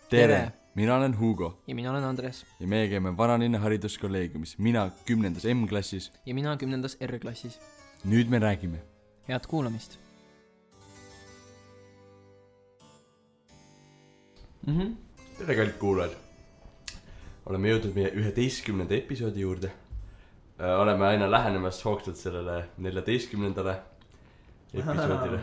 Tere! Mina olen Hugo. Ja mina olen Andres. Ja meie käime Vanalinna hariduskolleegiumis. Mina 10. M-klassis. Ja mina 10. R-klassis. Nüüd me räägime. Head kuulamist. Tere kallid kuulajad. Oleme jõudnud meie 11. episoodi juurde. Oleme aina lähenemas hoogsalt sellele 14. episoodile.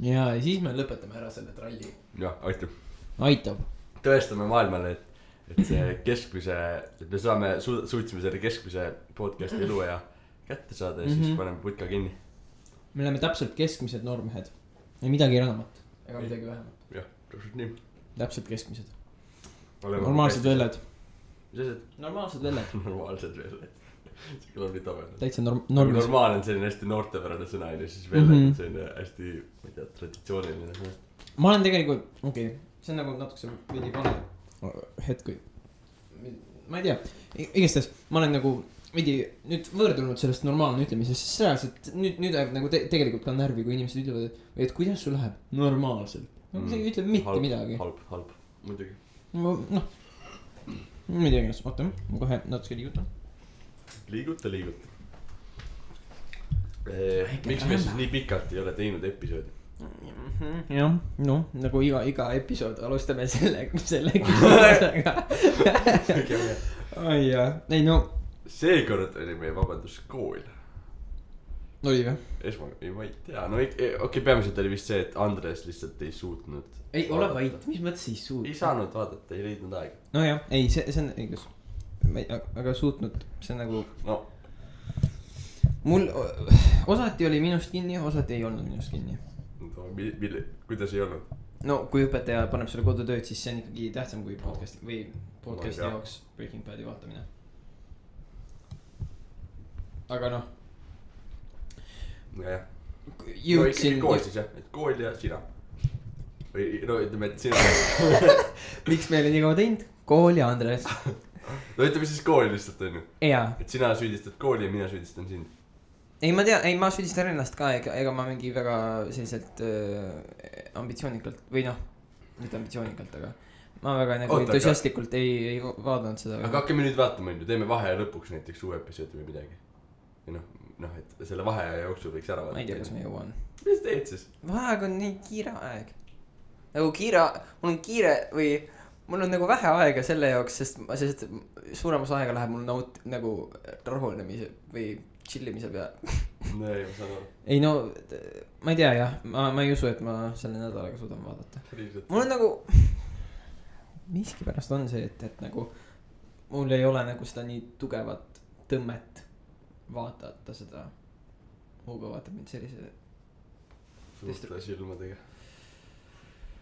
Ja siis me lõpetame ära selle tralli. Jah, Aitab. Tõestame maailmale, et see keskmise, et me suutsime selle keskmise podcasti eluea kätte saada ja siis paneme putka kinni. Me oleme täpselt keskmised noormehed. Ja midagi enamat. Ega midagi vähemat. Jah, täpselt nii. Täpselt keskmised. Normaalsed velled. Mis asjad? Normaalsed velled. Normaalsed velled. See kõlab nii tabel. Täitsa normaal on selline hästi noortepärane sõna ja siis velled on selline hästi, ma ei tea, traditsiooniline sõna. Ma olen tegelikult, see on nagu natukese veidi vale hetk. Ma ei tea, igastes ma olen nagu veidi nüüd võrdunud sellest normaalne ütlemisest, sest reaalselt nüüd ajab nagu tegelikult ka närvi, kui inimesed ütlevad, et kuidas sul läheb normaalselt. See ei ütle mitte midagi. Halb, muidugi. Noh, ma ei tea, oota, ma kohe natuke liigutan. Liiguta. Miks me siis nii pikalt ei ole teinud episoodi? Jah, no nagu iga episood alustame selle küsimusega. Ai jah, ei no. Seekord oli meie vabanduskool. Oli või? Ma ei tea, no okei, peamiselt oli vist see, et Andres lihtsalt ei suutnud. Ei, ole vait, mis mõttes ei suutnud? Ei saanud vaadata, ei leidnud aega. No jah, ei, see on õigus. Aga suutnud, see on nagu no. Mul osati oli minust kinni, osati ei olnud minust kinni no, kuidas ei olnud? No kui õpetaja paneb selle kodutööd, siis see on ikkagi tähtsam kui podcasti jaoks Breaking Badi vaatamine. Aga noh jah. Jõudsin kool siis jah, et kool ja sina või no ütleme, et sina Miks me oli nii kaua teinud? Kool ja Andres. No ütleme siis kooli lihtsalt on ju. Et sina süüdistad kooli ja mina süüdistan sind. Ei ma tea, ma süüdistan ennast ka, ega ma mingi väga selliselt ambitsioonikalt või noh, mitte ambitsioonikalt, aga ma väga nagu entusiastlikult ei vaadanud seda. Aga hakkame nüüd vaatama, teeme vaheaja lõpuks näiteks uue episoodi või midagi. Ja noh, et selle vaheaja jooksul võiks ära vaadata. Ma ei tea, kas me jõuan. Mis teed siis? Vaheaeg on nii kiire aeg. Nagu mul on kiire või mul on nagu vähe aega selle jaoks, sest suuremas aega läheb mul nagu rahunemise või chillimise peale. No ei, ma saan aru. Ei no, ma ei tea jah, ma ei usu, et ma selle nädalaga suudan vaadata. Mul on nagu, miski pärast on see, et nagu mul ei ole nagu seda nii tugevat tõmmet vaadata seda. Hugo vaatab mind sellise suurte silmadega.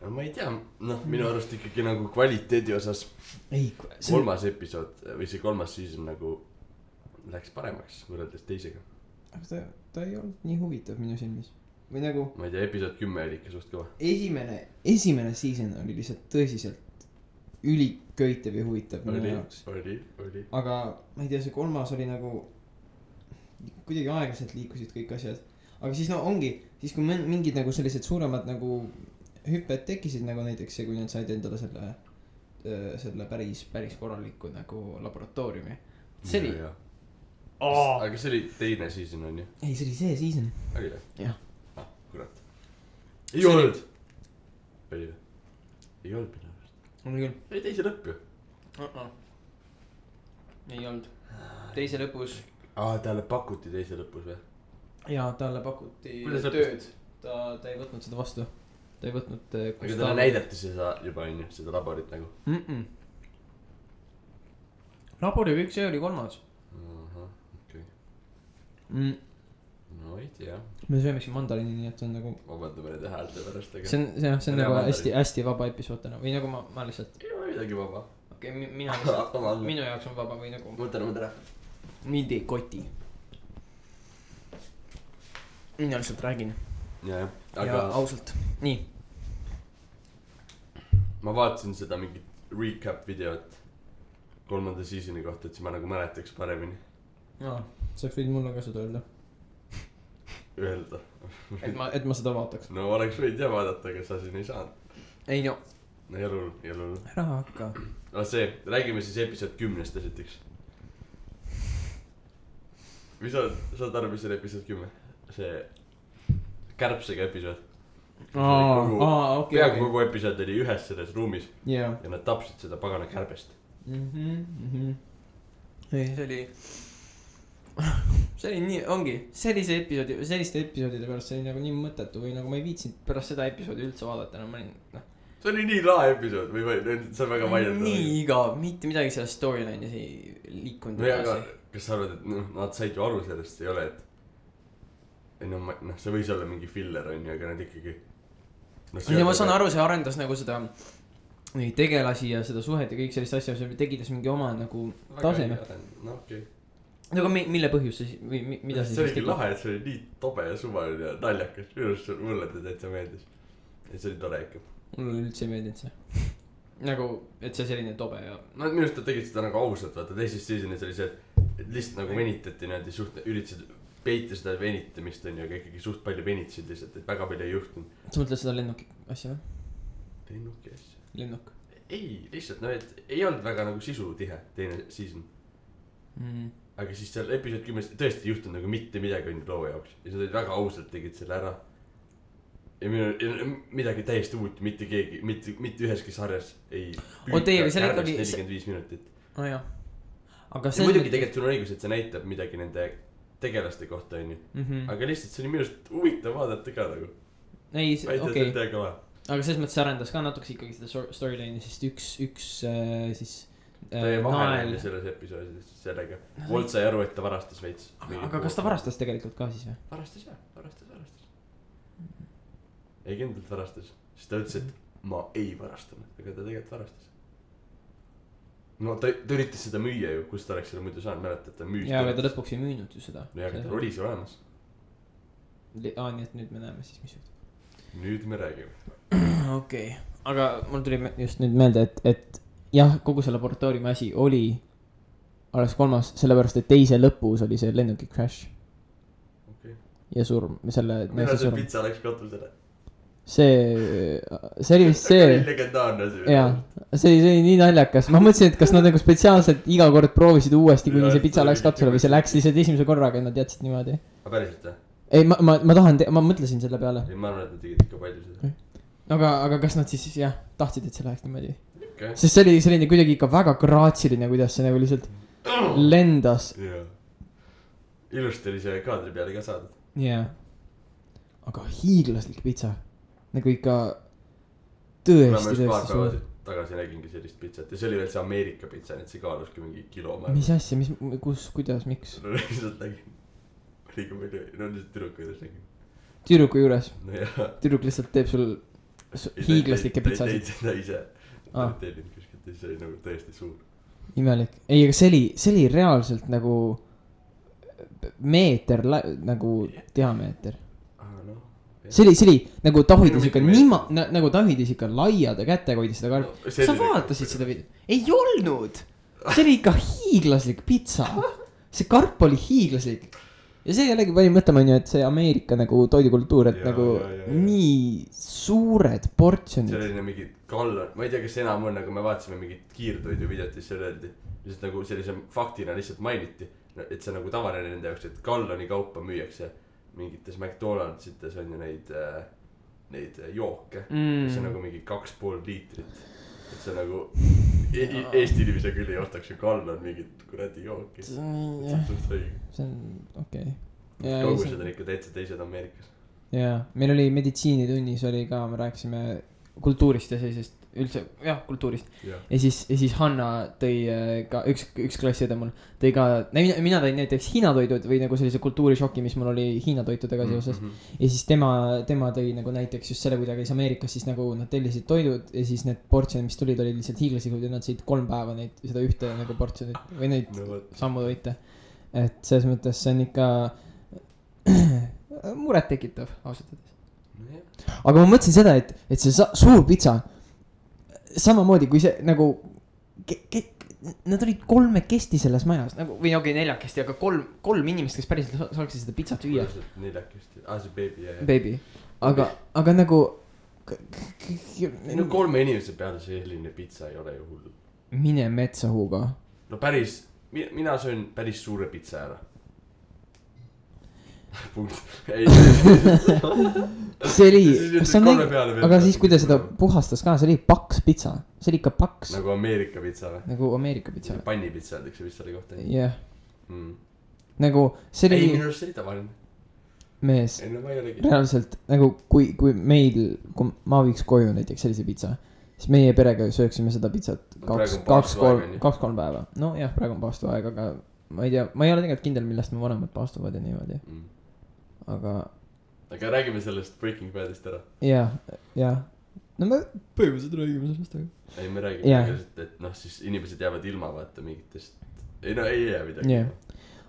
No ma ei tea, minu arust ikkagi nagu kvaliteedi osas kolmas episood või see kolmas season nagu läks paremaks võrreldes teisega. Aga ta ei olnud nii huvitav minu silmis. Või nagu ma ei tea, episood 10 oli ikka suht kõva. Esimene season oli lihtsalt tõsiselt üliköitev ja huvitav minu jaoks. Oli. Aga ma ei tea, see kolmas oli nagu kuidagi aeglaselt liikusid kõik asjad. Aga siis ongi, siis kui mingid nagu sellised suuremad nagu hüpped tekkisid nagu näiteks see, kui nad said endale selle päris korraliku nagu laboratooriumi. See oli Aga see oli teine season on ju? Ei, see oli see season. Oli või? Jah. Kurat. Ei olnud. Oli või? Ei olnud minu arust. Oli küll. Ei teise lõpp ju. Ei olnud. Teise lõpus. Talle pakuti teise lõpus või? Jaa, talle pakuti tööd. Ta ei võtnud seda vastu. Ta ei võtnud aga talle näidati seda juba on ju, seda laborit nagu labori kõik see oli kolmas. Okei. No ei tea. Me sööme siin mandariini, nii et see on nagu vabandame nende häälte pärast aga... See on nagu hästi vaba episood täna või nagu ma lihtsalt ei ole midagi vaba. Okei, mina lihtsalt minu jaoks on vaba või nagu Võtame tere. Mind ei koti. Mina lihtsalt räägin. Ja ausalt. Nii. Ma vaatasin seda mingit recap videot 3. seasoni kohta, et siis ma nagu mäletaks paremini. Sa võid mulle ka seda öelda. et ma seda vaataks. No oleks võid ja vaadata, aga sa siin ei saanud. Ei no. no ei ole hull. ära hakka. aga see, räägime siis episood 10-st esiteks. või saad aru, mis on episood 10? see kärbsega episood. peaaegu kogu episood oli ühes selles ruumis ja nad tapsid seda pagana kärbest. see oli nii, ongi sellise episoodi, selliste episoodide pärast see oli nagu nii mõttetu või nagu ma ei viitsinud pärast seda episoodi üldse vaadata, no ma olin see oli nii lahe episood või see on väga mainitud. nii igav, mitte midagi sellest storyline'is ei liikunud. no ja aga kas sa arvad, et nad said ju aru sellest, ei ole, et see võis olla mingi filler on ju, aga nad ikkagi ja ma saan aru, see arendas nagu seda neid tegelasi ja seda suhet ja kõik sellist asja, see tegitas mingi oma nagu taseme. no okei. aga mille põhjus see või mida see oligi lahe, et see oli nii tobe ja suvaline ja naljakas. minu arust mulle täitsa meeldis. et see oli tore ikka. mulle üldse ei meeldinud see. nagu, et see selline tobe ja. no minu arust nad tegid seda nagu ausalt, vaata teises seasonis oli see, et lihtsalt nagu venitati niimoodi suht, üritasid peita seda venitamist on ju, aga ikkagi suht palju venitasid lihtsalt, et väga palju ei juhtunud. sa mõtled seda lennuki asja või? lennuki asja? lennuk. ei, lihtsalt no, et ei olnud väga nagu sisutihe teine season. aga siis seal episood 10 tõesti ei juhtunud nagu mitte midagi on ju loo jaoks. ja nad olid väga ausalt tegid selle ära. ja midagi täiesti uut, mitte keegi, mitte üheski sarjas ei püüta kärbest 45 minutit. no jah. aga see muidugi tegelikult sul on õigus, et see näitab midagi nende tegelaste kohta onju. aga lihtsalt see oli minu arust huvitav vaadata ka nagu. ei, okei. aga selles mõttes arendas ka natuke ikkagi seda storyline'i, sest üks siis ta jäi vahele selles episoodis sellega. Walt sai aru, et ta varastas veits. aga kas ta varastas tegelikult ka siis või? varastas jah, varastas. ei kindlalt varastas, sest ta ütles, et ma ei varastanud, aga ta tegelikult varastas. no ta üritas seda müüa ju, kus ta oleks selle muidu saanud, mäletad, ta müüs. jaa, aga ta lõpuks ei müünud ju seda. no ja, aga ta oli see olemas. nii et nüüd me näeme siis, mis juhtub. nüüd me räägime. okei, aga mul tuli just nüüd meelde, et jah, kogu see laboratooriumi asi oli alles 3, sellepärast et teise lõpus oli see lennuki crash. ja surm, selle. mina see pitsa läks katusele. see oli vist see. legendaarne see. jaa, see oli nii naljakas, ma mõtlesin, et kas nad nagu spetsiaalselt iga kord proovisid uuesti, kuni see pitsa läks katusele või see läks lihtsalt esimese korraga ja nad jätsid niimoodi. aga päriselt või? ei, ma tahan, ma mõtlesin selle peale. ei, ma arvan, et nad tegid ikka palju seda. aga kas nad siis jah, tahtsid, et see läheks niimoodi okay.? Sest see oli selline kuidagi ikka väga graatsiline, kuidas see nagu lihtsalt lendas. jaa. ilusti oli see kaadri peale ka saadud. jaa. aga hiiglaslik pitsa. nagu ikka tõesti suur. tagasi nägingi sellist pitsat ja see oli veel see Ameerika pitsa, nii et see kaaluski mingi kilo. mis asja, kus, kuidas, miks? no lihtsalt nägin. liiga palju, no lihtsalt tüdruku juures nägin. tüdruku juures? no jah. tüdruk lihtsalt teeb sul hiiglaslikke pitsasid. ta ei teinud seda ise. ta ei teinud kuskilt, see oli nagu tõesti suur. imelik. ei, aga see oli reaalselt nagu meeter nagu diameeter. see oli nagu ta hoidis ikka nagu ta hoidis ikka laiade kätega hoidis seda karpi no,. sa vaatasid seda video? ei olnud. see oli ikka hiiglaslik pitsa. see karp oli hiiglaslik. ja see jällegi pani mõtlema onju, et see Ameerika nagu toidukultuur, et ja, nagu ja. Nii suured portsjonid. see oli mingi gallon, ma ei tea, kas enam on, aga me vaatasime mingit kiirtoidu videot, siis seal öeldi. lihtsalt nagu sellise faktina lihtsalt mainiti, et see nagu tavaline nende jaoks, et galloni kaupa müüakse. mingites McDonaldsites on ju neid jooke, see on nagu mingi 2,5 liitrit. et see nagu Eesti inimese küll ei ostaks ju gallon mingit kuradi jooki. see on okei. kaugused on ikka täitsa teised Ameerikas. jaa, meil oli meditsiinitunnis oli ka, me rääkisime kultuurist ja sellisest üldse, jah, kultuurist. Ja siis Hanna tõi ka, üks klassiõde mul tõi ka, mina tõin näiteks Hiina toidud või nagu sellise kultuurishoki, mis mul oli Hiina toitudega seoses. Ja siis tema tõi nagu näiteks just selle, kui ta käis Ameerikas, siis nagu nad tellisid toidud ja siis need portsjonid, mis tulid, olid lihtsalt hiiglaslikud ja nad sõid 3 päeva neid, seda ühte nagu portsjonit või neid sammutoite. Et selles mõttes see on ikka muret tekitav, ausalt öeldes. Aga ma mõtlesin seda, et see suur pitsa samamoodi kui see nagu nad olid 3 selles majas nagu või okei 4, aga 3 inimest, kes päriselt saaksid seda pitsat süüa. 4, see baby baby, aga nagu no 3 inimese peale selline pitsa ei ole ju hull. Mine metsa Hugo. No päris, mina söön päris suure pitsa ära. Punkt. Ei. See oli, aga siis kui ta seda puhastas ka, see oli paks pitsa. See oli ikka paks. Nagu Ameerika pitsa või? Nagu Ameerika pitsa. Pannipitsa öeldakse vist selle kohta. Jah. Nagu see oli. Ei, minu arust see oli tavaline. Mees, reaalselt nagu kui meil, kui ma viiks koju näiteks sellise pitsa, siis meie perega sööksime seda pitsat 2-3 päeva. No jah, praegu on paastu aeg, aga ma ei tea, ma ei ole tegelikult kindel, millest me vanemad paastuvad ja niimoodi. Aga räägime sellest Breaking Badist ära. Jah. No me põhimõtteliselt räägime sellest, aga ei, me räägime, et noh, siis inimesed jäävad ilma vaata mingitest. Ei no, ei jää midagi.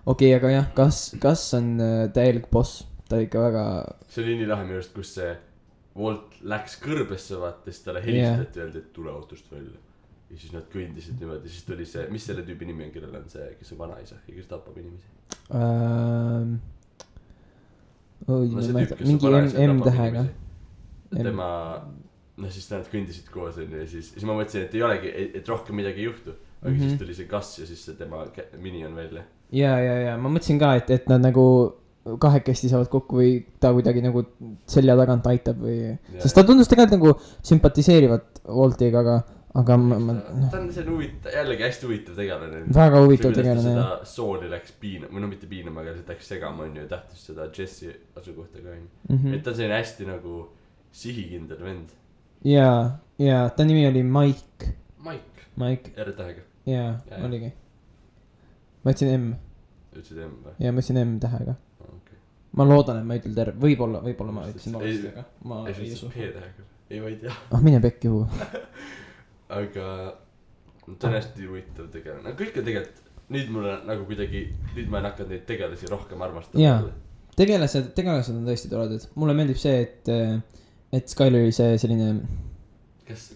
Okei, aga jah, kas on täielik boss? Ta ikka väga. See oli nii lahe minu arust, kus see Walt läks kõrbesse vaata, siis talle helistati öeldi, et tule autost välja. Ja siis nad kõndisid niimoodi, siis tuli see, mis selle tüübi nimi on, kellel on see, kes on vanaisa ja kes tapab inimesi? Mingi M-tähega. Tema, noh siis nad kõndisid koos ja siis ma mõtlesin, et ei olegi, et rohkem midagi ei juhtu. Aga siis tuli see kass ja siis see tema mini on välja. Ja, ma mõtlesin ka, et nad nagu kahekesti saavad kokku või ta kuidagi nagu selja tagant aitab või. Sest ta tundus tegelikult nagu sümpatiseerivat Waltiga, aga ta on see jällegi hästi huvitav tegelane. Väga huvitav tegelane. Seda sooli läks piinama, või no mitte piinama, aga see läks segama on ju tähtis seda Jesse asukohta ka on. Et ta on selline hästi nagu sihikindel vend. Ja ta nimi oli Mike. R-tähega. Ja, oligi. Ma ütlesin M. Ütlesid M või? Ja ma ütlesin M-tähega. Ma loodan, et ma ütlen terve, võib-olla ma ütlesin valesti, aga ma ei usu. P-tähega, ei ma ei tea. Mine pekki huu. Aga ta on hästi huvitav tegelane, aga kõik on tegelikult, nüüd mulle nagu kuidagi, nüüd ma olen hakanud neid tegelasi rohkem armastama. Jaa, tegelased on tõesti toredad. Mulle meeldib see, et Skyleri see selline.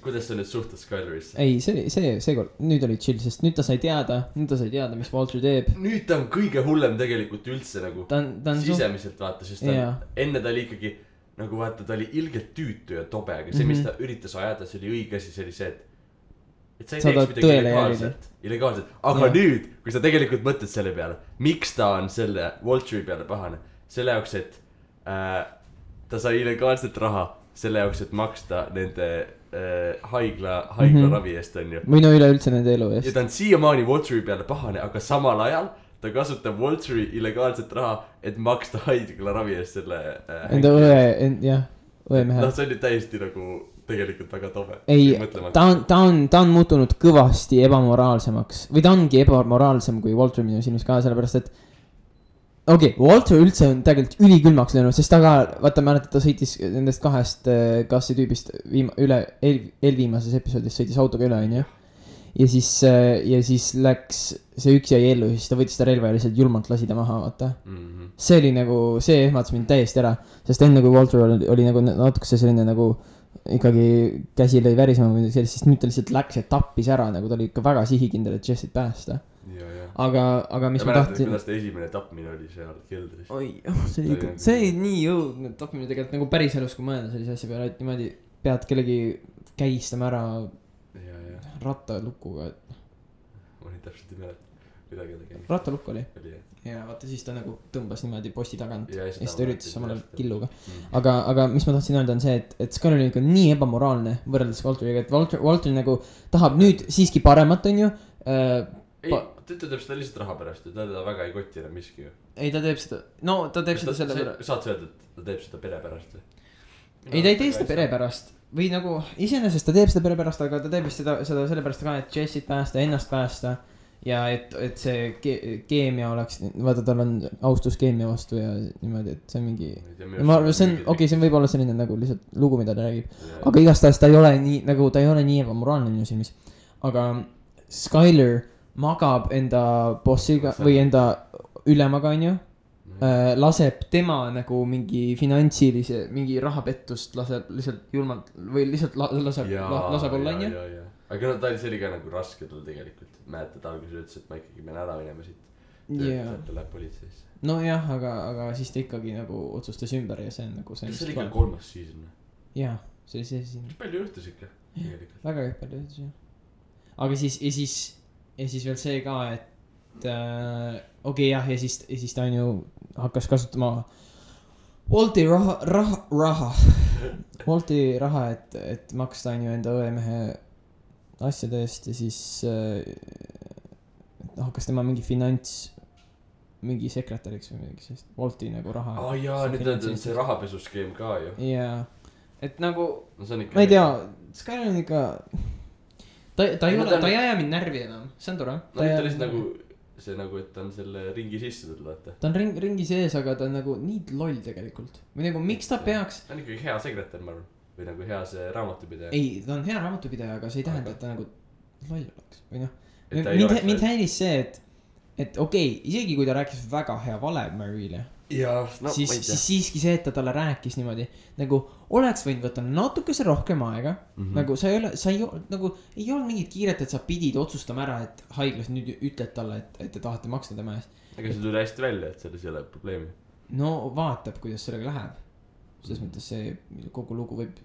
Kuidas sa nüüd suhtud Skylerisse? Ei, see kord, nüüd oli chill, sest nüüd ta sai teada, mis Walter teeb. Nüüd ta on kõige hullem tegelikult üldse nagu sisemiselt vaata, sest enne ta oli ikkagi nagu vaata, ta oli ilgelt tüütu ja tobe, aga see, mis ta üritas ajada, see oli õige asi, see oli see, et sa ei teeks midagi illegaalselt. Aga nüüd, kui sa tegelikult mõtled selle peale, miks ta on selle Walteri peale pahane, selle jaoks, et ta sai illegaalset raha, selle jaoks, et maksta nende haigla ravi eest on ju. Või no üleüldse nende elu eest. Ja ta on siiamaani Walteri peale pahane, aga samal ajal ta kasutab Walteri illegaalset raha, et maksta haigla ravi eest selle enda õe mehe. No see oli täiesti nagu tegelikult väga tobe. Ei, ta on muutunud kõvasti ebamoraalsemaks. Või ta ongi ebamoraalsem kui Walter minu silmis ka, sellepärast et Walter üldse on tegelikult ülikülmaks löönud, sest ta ka, vaata mäletad, ta sõitis nendest 2 kassi tüübist eelviimases episoodis sõitis autoga üle, on ju. Ja siis läks, see üks jäi ellu, siis ta võttis ta relva ja lihtsalt julmalt lasi ta maha, vaata. See oli nagu, see ehmatas mind täiesti ära, sest enne kui Walter oli nagu natuke selline nagu ikkagi käsi lõi värisema või sellist, siis nüüd ta lihtsalt läks ja tappis ära, nagu ta oli ikka väga sihikindel, et Jessit päästa. Aga mis ma tahtsin. Kuidas ta esimene tapmine oli seal keldris? See oli nii jõudnud tapmine tegelikult nagu päris elus, kui mõelda sellise asja peale, et niimoodi pead kellegi kägistama ära rattalukuga. Ma ei täpselt ei mäleta. Rattalukk oli. Ja vaata siis ta nagu tõmbas niimoodi posti tagant ja siis ta üritas samal ajal killuga. Aga mis ma tahtsin öelda on see, et Skyler on ikka nii ebamoraalne võrreldes Walteriga, et Walter nagu tahab nüüd siiski paremat, on ju. Ei, ta teeb seda lihtsalt raha pärast ja ta väga ei kotti enam miski ju. Ei, ta teeb seda, ta teeb seda selle pärast. Saad sa öelda, et ta teeb seda pere pärast või? Ei, ta ei tee seda pere pärast. Või nagu, iseenesest ta teeb seda pere pärast, aga ta teeb seda selle pärast ka, et Jessit päästa, ennast päästa. Ja et see keemia oleks, vaata tal on austus keemia vastu ja niimoodi, et see on mingi. See on võib-olla selline nagu lihtsalt lugu, mida ta räägib. Aga igastahes ta ei ole nii ebamoraalne minu silmis. Aga Skyler magab enda bossiga või enda ülemaga, on ju. Laseb tema nagu mingi finantsilise, mingi rahapettust laseb lihtsalt julmalt või lihtsalt laseb olla, on ju. Aga see oli ka nagu raske tal tegelikult. Mäletad alguses ütles, et ma ikkagi pean ära minema siit. Ta läheb politseisse. No jah, aga siis ta ikkagi nagu otsustas ümber ja see on nagu see. Kas see oli ka 3. season? Jah, see oli see siin. palju juhtus ikka tegelikult. väga palju juhtus jah. aga siis ja siis veel see ka, et okei, jah, ja siis ta on ju hakkas kasutama Wolti raha, et maksta on ju enda õemehe asjade eest ja siis hakkas tema mingi mingi sekretäriks või mingi sellist Wolti nagu raha. Jaa, nüüd on see rahapesuskeem ka ju. Jaa, et nagu no, ma ei tea, Skyler on ikka ta ei aja mind närvi enam, see on tore. No ta lihtsalt nagu see nagu, et ta on selle ringi sisse tulnud, vaata. Ta on ringi sees, aga ta on nagu nii loll tegelikult. Või nagu miks ta peaks. Ta on ikkagi hea sekretär, ma arvan. Või nagu hea see raamatupidaja. Ei, ta on hea raamatupidaja, aga see ei tähenda, et ta nagu loll oleks. Või noh, mind häiris see, et okei, isegi kui ta rääkis väga hea vale Marielle. Jaa, no siis siiski see, et ta talle rääkis niimoodi nagu oleks võinud võtta natukese rohkem aega. Nagu sa ei olnud mingit kiiret, et sa pidid otsustama ära, et haiglas nüüd ütled talle, et te tahate maksta tema eest. Aga see tuli hästi välja, et selles ei ole probleemi. No vaatab, kuidas sellega läheb. Selles mõttes see kogu lugu võib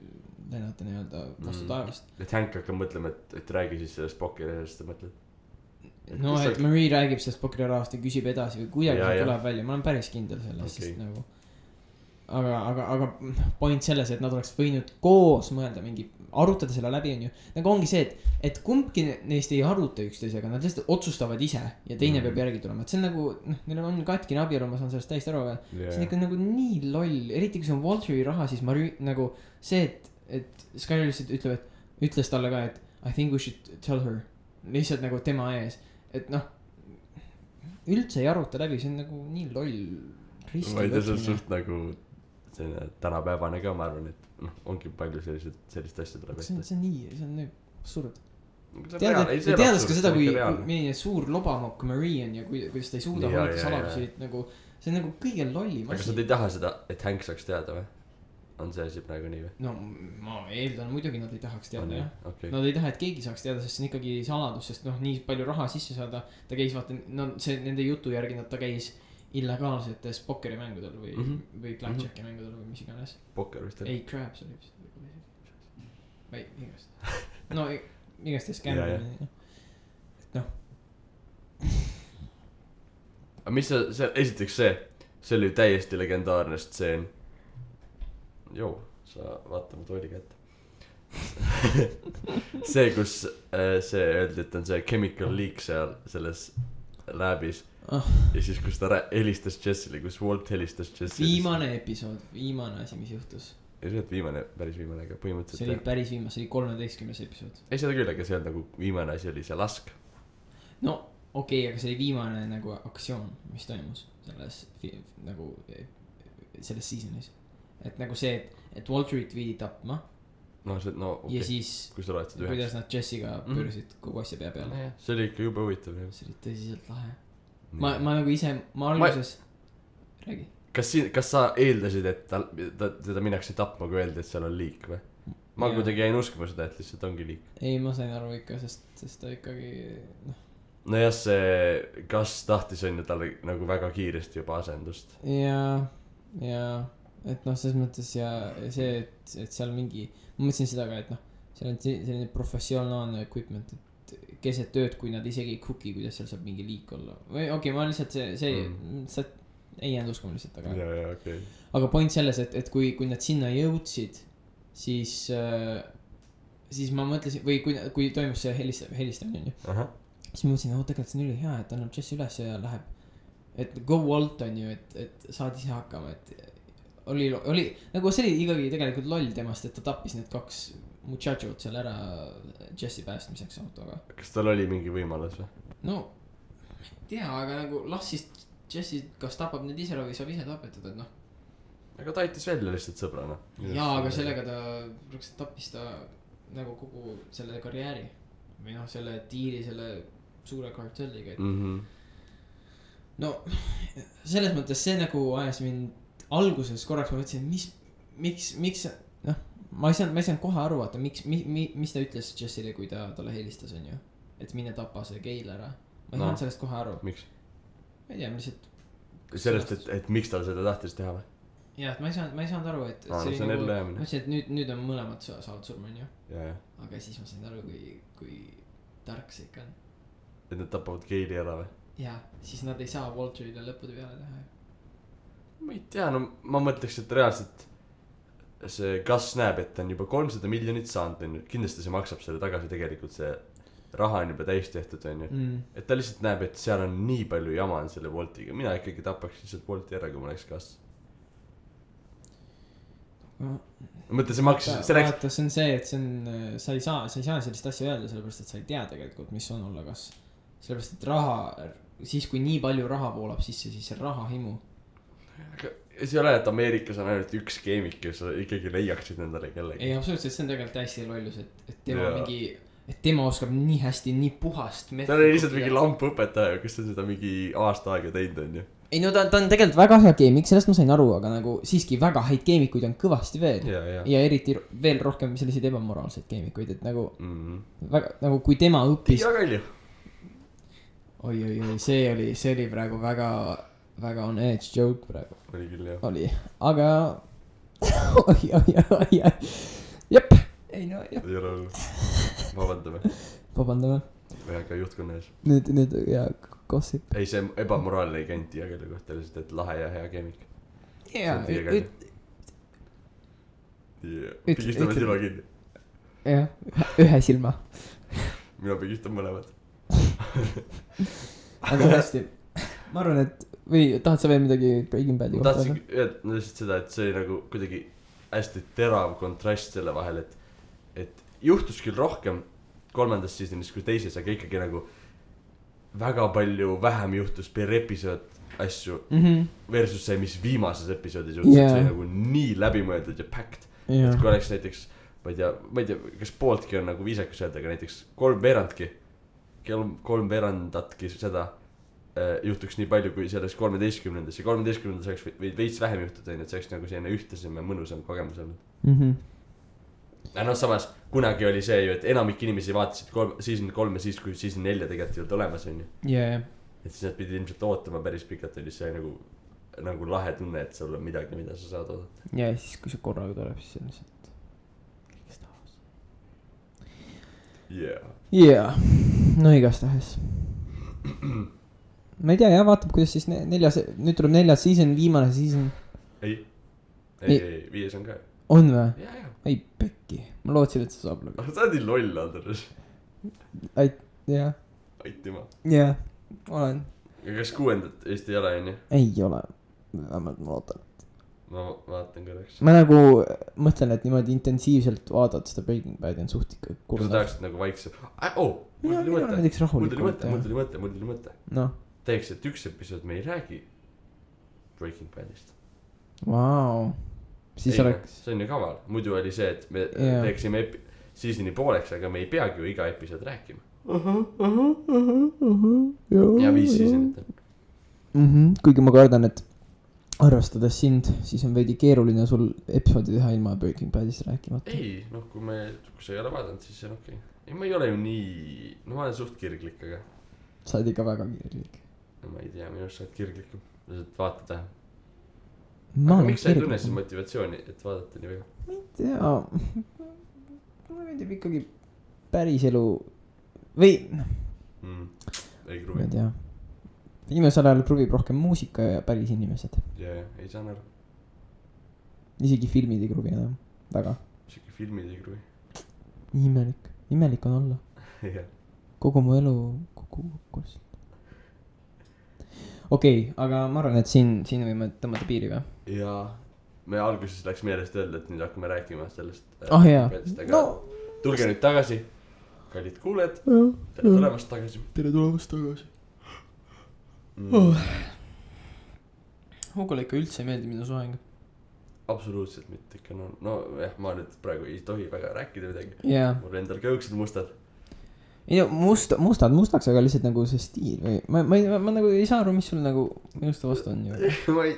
lennata nii-öelda vastu taevast. Et Hank hakkab mõtlema, et räägi siis sellest Pokerist, sa mõtled. No, et Marie räägib sellest Pokeri rahast ja küsib edasi või kuidagi see tuleb välja. Ma olen päris kindel selles, sest nagu aga point selles, et nad oleks võinud koos mõelda mingi, arutada selle läbi on ju. Nagu ongi see, et kumbki neist ei aruta üksteisega, nad lihtsalt otsustavad ise ja teine peab järgi tulema. Et see on nagu, neil on katkine abielu, ma saan sellest täiesti aru, aga see on ikka nagu nii loll. Eriti kui see on Walteri raha, siis Marie nagu see, et Skyler lihtsalt ütles talle ka, et I think we should tell her. Lihtsalt nagu tema ees. Et noh, üldse ei aruta läbi, see on nagu nii loll riski. Ma ei tea, see on suht nagu selline tänapäevane ka, ma arvan, et ongi palju sellist asja tuleb ette. See on nii absurd. Teades ka seda, kui milline suur lobamokk Marie on ja kuidas ta ei suuda hoida saladusi, nagu see on nagu kõige lollim asi. Aga sa ei taha seda, et Hank saaks teada või? On see asi praegu nii või? No ma eeldan muidugi nad ei tahaks teada jah okay. Nad ei taha, et keegi saaks teada, sest see on ikkagi saladus, sest nii palju raha sisse saada. Ta käis vaata, see nende jutu järgi ta käis illegaalsetes pokkerimängudel või blackjacki mängudel või mis iganes. Pokker vist ei, crabs oli vist või igast no igast skämmi noh. aga mis see esiteks see oli täiesti legendaarne stseen. Joo, sa vaata mu tooli kätte. See, kus see öeldi, et on see chemical leak seal selles läbis. Ja siis, kus ta helistas Jessile, kus Walt helistas Jessile. Viimane episood, viimane asi, mis juhtus. Ei, see on päris viimane, aga põhimõtteliselt. See oli päris viimane, see oli 13. episood. Ei, seda küll, aga see on nagu viimane asi oli see lask. No, okei, aga see oli viimane nagu aktsioon, mis toimus selles nagu selles seasonis. Et nagu see, et Walterit viidi tapma. No see, no okei. Ja siis, kuidas nad Jessiga pöörsid kogu asja pea peale. See oli ikka jube huvitav. See oli tõsiselt lahe. Ma nagu ise, ma alguses räägi. Kas sa eeldasid, et teda minnakse tapma, kui öeldi, et seal on liik või? Ma kuidagi jäin uskuma seda, et lihtsalt ongi liik. Ei, ma sain aru ikka, sest ta ikkagi no jah, see kas tahtis on ju talle nagu väga kiiresti juba asendust. Ja et selles mõttes ja see, et seal mingi, ma mõtlesin seda ka, et seal on selline professionaalne equipment, et keset tööd, kui nad isegi ei cooki, kuidas seal saab mingi liik olla. Või okei, ma lihtsalt see ei jäänud uskuma lihtsalt, okay. Aga point selles, et kui nad sinna jõudsid, siis ma mõtlesin, või kui toimus see helistamine, siis ma mõtlesin, tegelikult see on üli hea, et annab Jesse üles ja läheb, et go Walt on ju, et saad ise hakkama, et oli nagu see oli ikkagi tegelikult loll temast, et ta tappis need 2 muchachot seal ära Jesse päästmiseks autoga. Kas tal oli mingi võimalus või? No ei tea, aga nagu las siis Jesse kas tapab need ise või saab ise tapetada, et aga ta aitas välja lihtsalt sõbrana. Jaa, aga sellega ta tappis ta nagu kogu selle karjääri või selle diili selle suure kartelliga, et no selles mõttes see nagu ajas mind alguses korraks ma mõtlesin, miks ma ei saanud kohe aru, vaata, mis ta ütles Jessile, kui ta talle helistas, on ju, et mine tapa see Gail ära. Ma ei saanud sellest kohe aru. Miks? Ma ei tea, lihtsalt. Sellest, et miks ta seda tahtis teha või? jah, ma ei saanud aru, et see on ellu jäämine. Ma ütlesin, et nüüd on mõlemad saavad surma, on ju. Aga siis ma sain aru, kui tark see ikka on. Et nad tapavad Gaili ära või? Jaa, siis nad ei saa Walterile lõppude peale teha. Ma ei tea, no ma mõtleks, et reaalselt see Gus näeb, et ta on juba 300 miljonit saanud. Kindlasti see maksab selle tagasi tegelikult, see raha on juba täis tehtud, on ju. Et ta lihtsalt näeb, et seal on nii palju jama on selle Waltiga. Mina ikkagi tapaks lihtsalt Walti ära, kui ma oleks Gus. Mõtle, see maksis, see läks... Vaata, see on see, et see on, sa ei saa sellist asja öelda, sellepärast, et sa ei tea tegelikult, mis on olla Gus. Sellepärast, et raha, siis kui nii palju raha voolab sisse, siis see raha himu. Aga see ei ole, et Ameerikas on ainult üks keemik, kes ikkagi leiaksid nendele kellegi. Ei, absoluutselt, see on tegelikult hästi lollus, et tema mingi, et tema oskab nii hästi, nii puhast. Ta oli lihtsalt mingi lamp-õpetaja, kes on seda mingi aasta aega teinud, on ju. Ei, no ta on tegelikult väga hea keemik, sellest ma sain aru, aga nagu siiski väga häid keemikuid on kõvasti veel. Ja eriti veel rohkem selliseid ebamoraalseid keemikuid, et nagu, väga, nagu kui tema õppis. Tiia Kalju. Oi, see oli praegu väga on edge joke praegu. Oli küll, jah. Oli, aga oi. Jep, ei no, jep. Ei ole olnud. Vabandame. Või aga juhtkonna ees. Nüüd, ja gossip. Ei, see ebamoraalne ei käinud Tiia Kalju kohta, lihtsalt, et lahe ja hea keemik. Jaa. Pigistame silma kinni. Jah, ühe silma. Mina pigistan mõlemad. Aga hästi, ma arvan, et või tahad sa veel midagi Breaking Badi kohta? Ma tahtsin öelda lihtsalt seda, et see oli nagu kuidagi hästi terav kontrast selle vahel, et juhtus küll rohkem 3. seasonis kui 2, aga ikkagi nagu väga palju vähem juhtus per episood asju versus see, mis viimases episoodis juhtus, et see oli nagu nii läbimõeldud ja packed, et kui oleks näiteks, ma ei tea, kas pooltki on nagu viisakas öelda, aga näiteks 3/4 seda juhtuks nii palju, kui selles 13. ja 13. oleks veits vähem juhtuda, et see oleks nagu selline ühtlasem ja mõnusam kogemus olnud. Ja noh, samas kunagi oli see ju, et enamik inimesi vaatasid season 3 ja siis, kui season 4 tegelikult ei olnud olemas, on ju. Et siis nad pidid ilmselt ootama päris pikalt, oli see nagu lahe tunne, et sul on midagi, mida sa saad oodata. Ja siis, kui see korraga tuleb, siis on lihtsalt kõigest tahas. Yeah. No igastahes. Ma ei tea, jah, vaatab, kuidas siis nüüd tuleb 4. season, viimane season. Ei, 5 on ka. On või? Jaa. Ei, pekki. Ma lootsin, et sa saab lõgu. Sa oled nii loll, Andres. Jah. Aitima. Jah, olen. Ja kas 6. Eesti ei ole, on ju? Ei ole. Vähemalt ma loodan. Ma vaatan korraks. Ma nagu mõtlen, et niimoodi intensiivselt vaadata seda Breaking Badi on suht ikka kurda. Sa tahaksid nagu vaikselt. Mul tuli mõte. No. Teeks, et üks episood me ei räägi Breaking Badist. Vau. Siis oleks... See on ju kaval. Muidu oli see, et me teeksime seasoni pooleks, aga me ei peagi ju iga episood rääkima. Ja 5 seasonit on. Kuigi ma kardan, et arvestades sind, siis on veidi keeruline sul episoodi teha ilma Breaking Badist rääkimata. Ei, noh, kui sa ei ole vaadanud, siis see on okei. Ei, ma ei ole ju nii... No ma olen suht kirglik, aga... Sa oled ikka väga kirglik. No ma ei tea, minust sa oled kirglikum. Lihtsalt vaata tähe. Aga miks sa ei tunne siis motivatsiooni, et vaadata nii väga? Ma ei tea. Mulle meeldib ikkagi päris elu... Või... Ei kruvi. Ma ei tea. Viimasel ajal kruvib rohkem muusika ja päris inimesed. Jaa, ei saan aru. Isegi filmid ei kruvi enam. Väga. Isegi filmid ei kruvi. Imelik. Imelik on olla. Jah. Kogu mu elu kogu. Okei, aga ma arvan, et siin võime tõmmata piiri või? Jaa. Me alguses läks meelest öelda, et nüüd hakkame rääkima sellest. Jaa. No. Tulge nüüd tagasi. Kallid kuuled. Tere tulemast tagasi. Hugole ikka üldse ei meeldi minu soeng. Absoluutselt mitte ikka. No jah, ma nüüd praegu ei tohi väga rääkida midagi. Mul endal kõõksed mustad. Ei no mustaks, aga lihtsalt nagu see stiil või ma nagu ei saa aru, mis sul nagu minusta vastu on ju.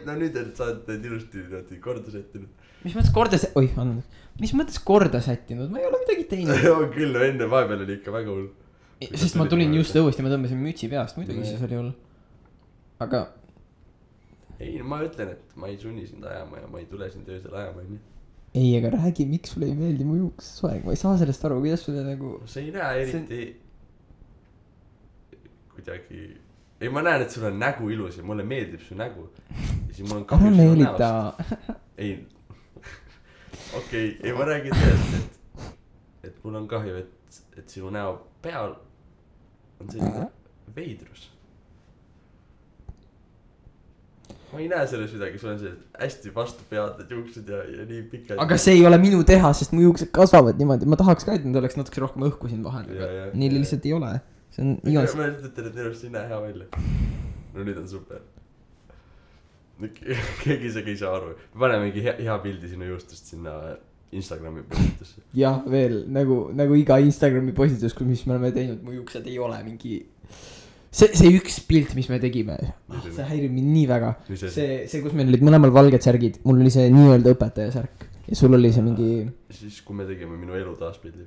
No nüüd sa oled need ilusti korda sättinud. Mis mõttes korda sättinud? Ma ei ole midagi teinud. On küll, enne vahepeal oli ikka väga hull. Sest ma tulin just õuest ja ma tõmbasin mütsi peast, muidugi siis oli hull. Aga ei ma ütlen et ma ei sunni sind ajama ja ma ei tule sind öösel ajama onju ei aga räägi miks sulle ei meeldi mu juuksesoeng ma ei saa sellest aru kuidas sulle nagu sa ei näe eriti kuidagi ei ma näen et sul on nägu ilus ja mulle meeldib su nägu ja siis mul on kahju sinu näost ei okei ei ma räägin tõesti et mul on kahju et sinu näo peal on selline veidrus ma ei näe selles midagi sul on sellised hästi vastu peatud juuksed ja nii pikad aga see ei ole minu teha sest mu juuksed kasvavad niimoodi ma tahaks ka et need oleks natuke rohkem õhku siin vahel aga neil lihtsalt ei ole see on igas ma ütlen et minust ei näe hea välja no nüüd on super keegi isegi ei saa aru me paneme mingi hea pildi sinu juustust sinna Instagrami postitusse jah veel nagu iga Instagrami postitus mis me oleme teinud mu juuksed ei ole mingi see üks pilt mis me tegime see häirib mind nii väga see kus meil olid mõlemal valged särgid mul oli see nii-öelda õpetaja särk ja sul oli see mingi siis kui me tegime minu elu taas pildi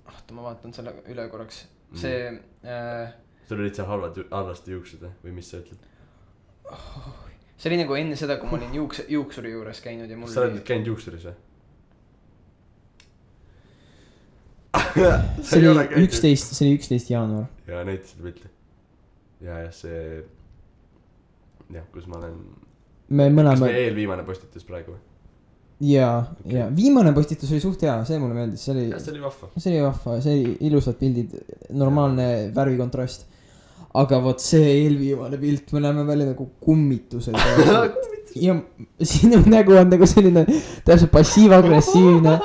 oota ma vaatan selle üle korraks see sul olid seal halvasti juuksed või mis sa ütled see oli nagu enne seda kui ma olin juuksuri juures käinud ja mul sa oled käinud juuksuris või? see oli 11 jaanuar ja näitasid pilti ja see jah kus ma olen me mõlema kas me eelviimane postitus praegu või ja viimane postitus oli suht hea see mulle meeldis see oli vahva see oli ilusad pildid normaalne värvikontrast aga vot see eelviimane pilt me näeme välja nagu kummitused ja sinu nägu on nagu selline täpselt passiiv-agressiivne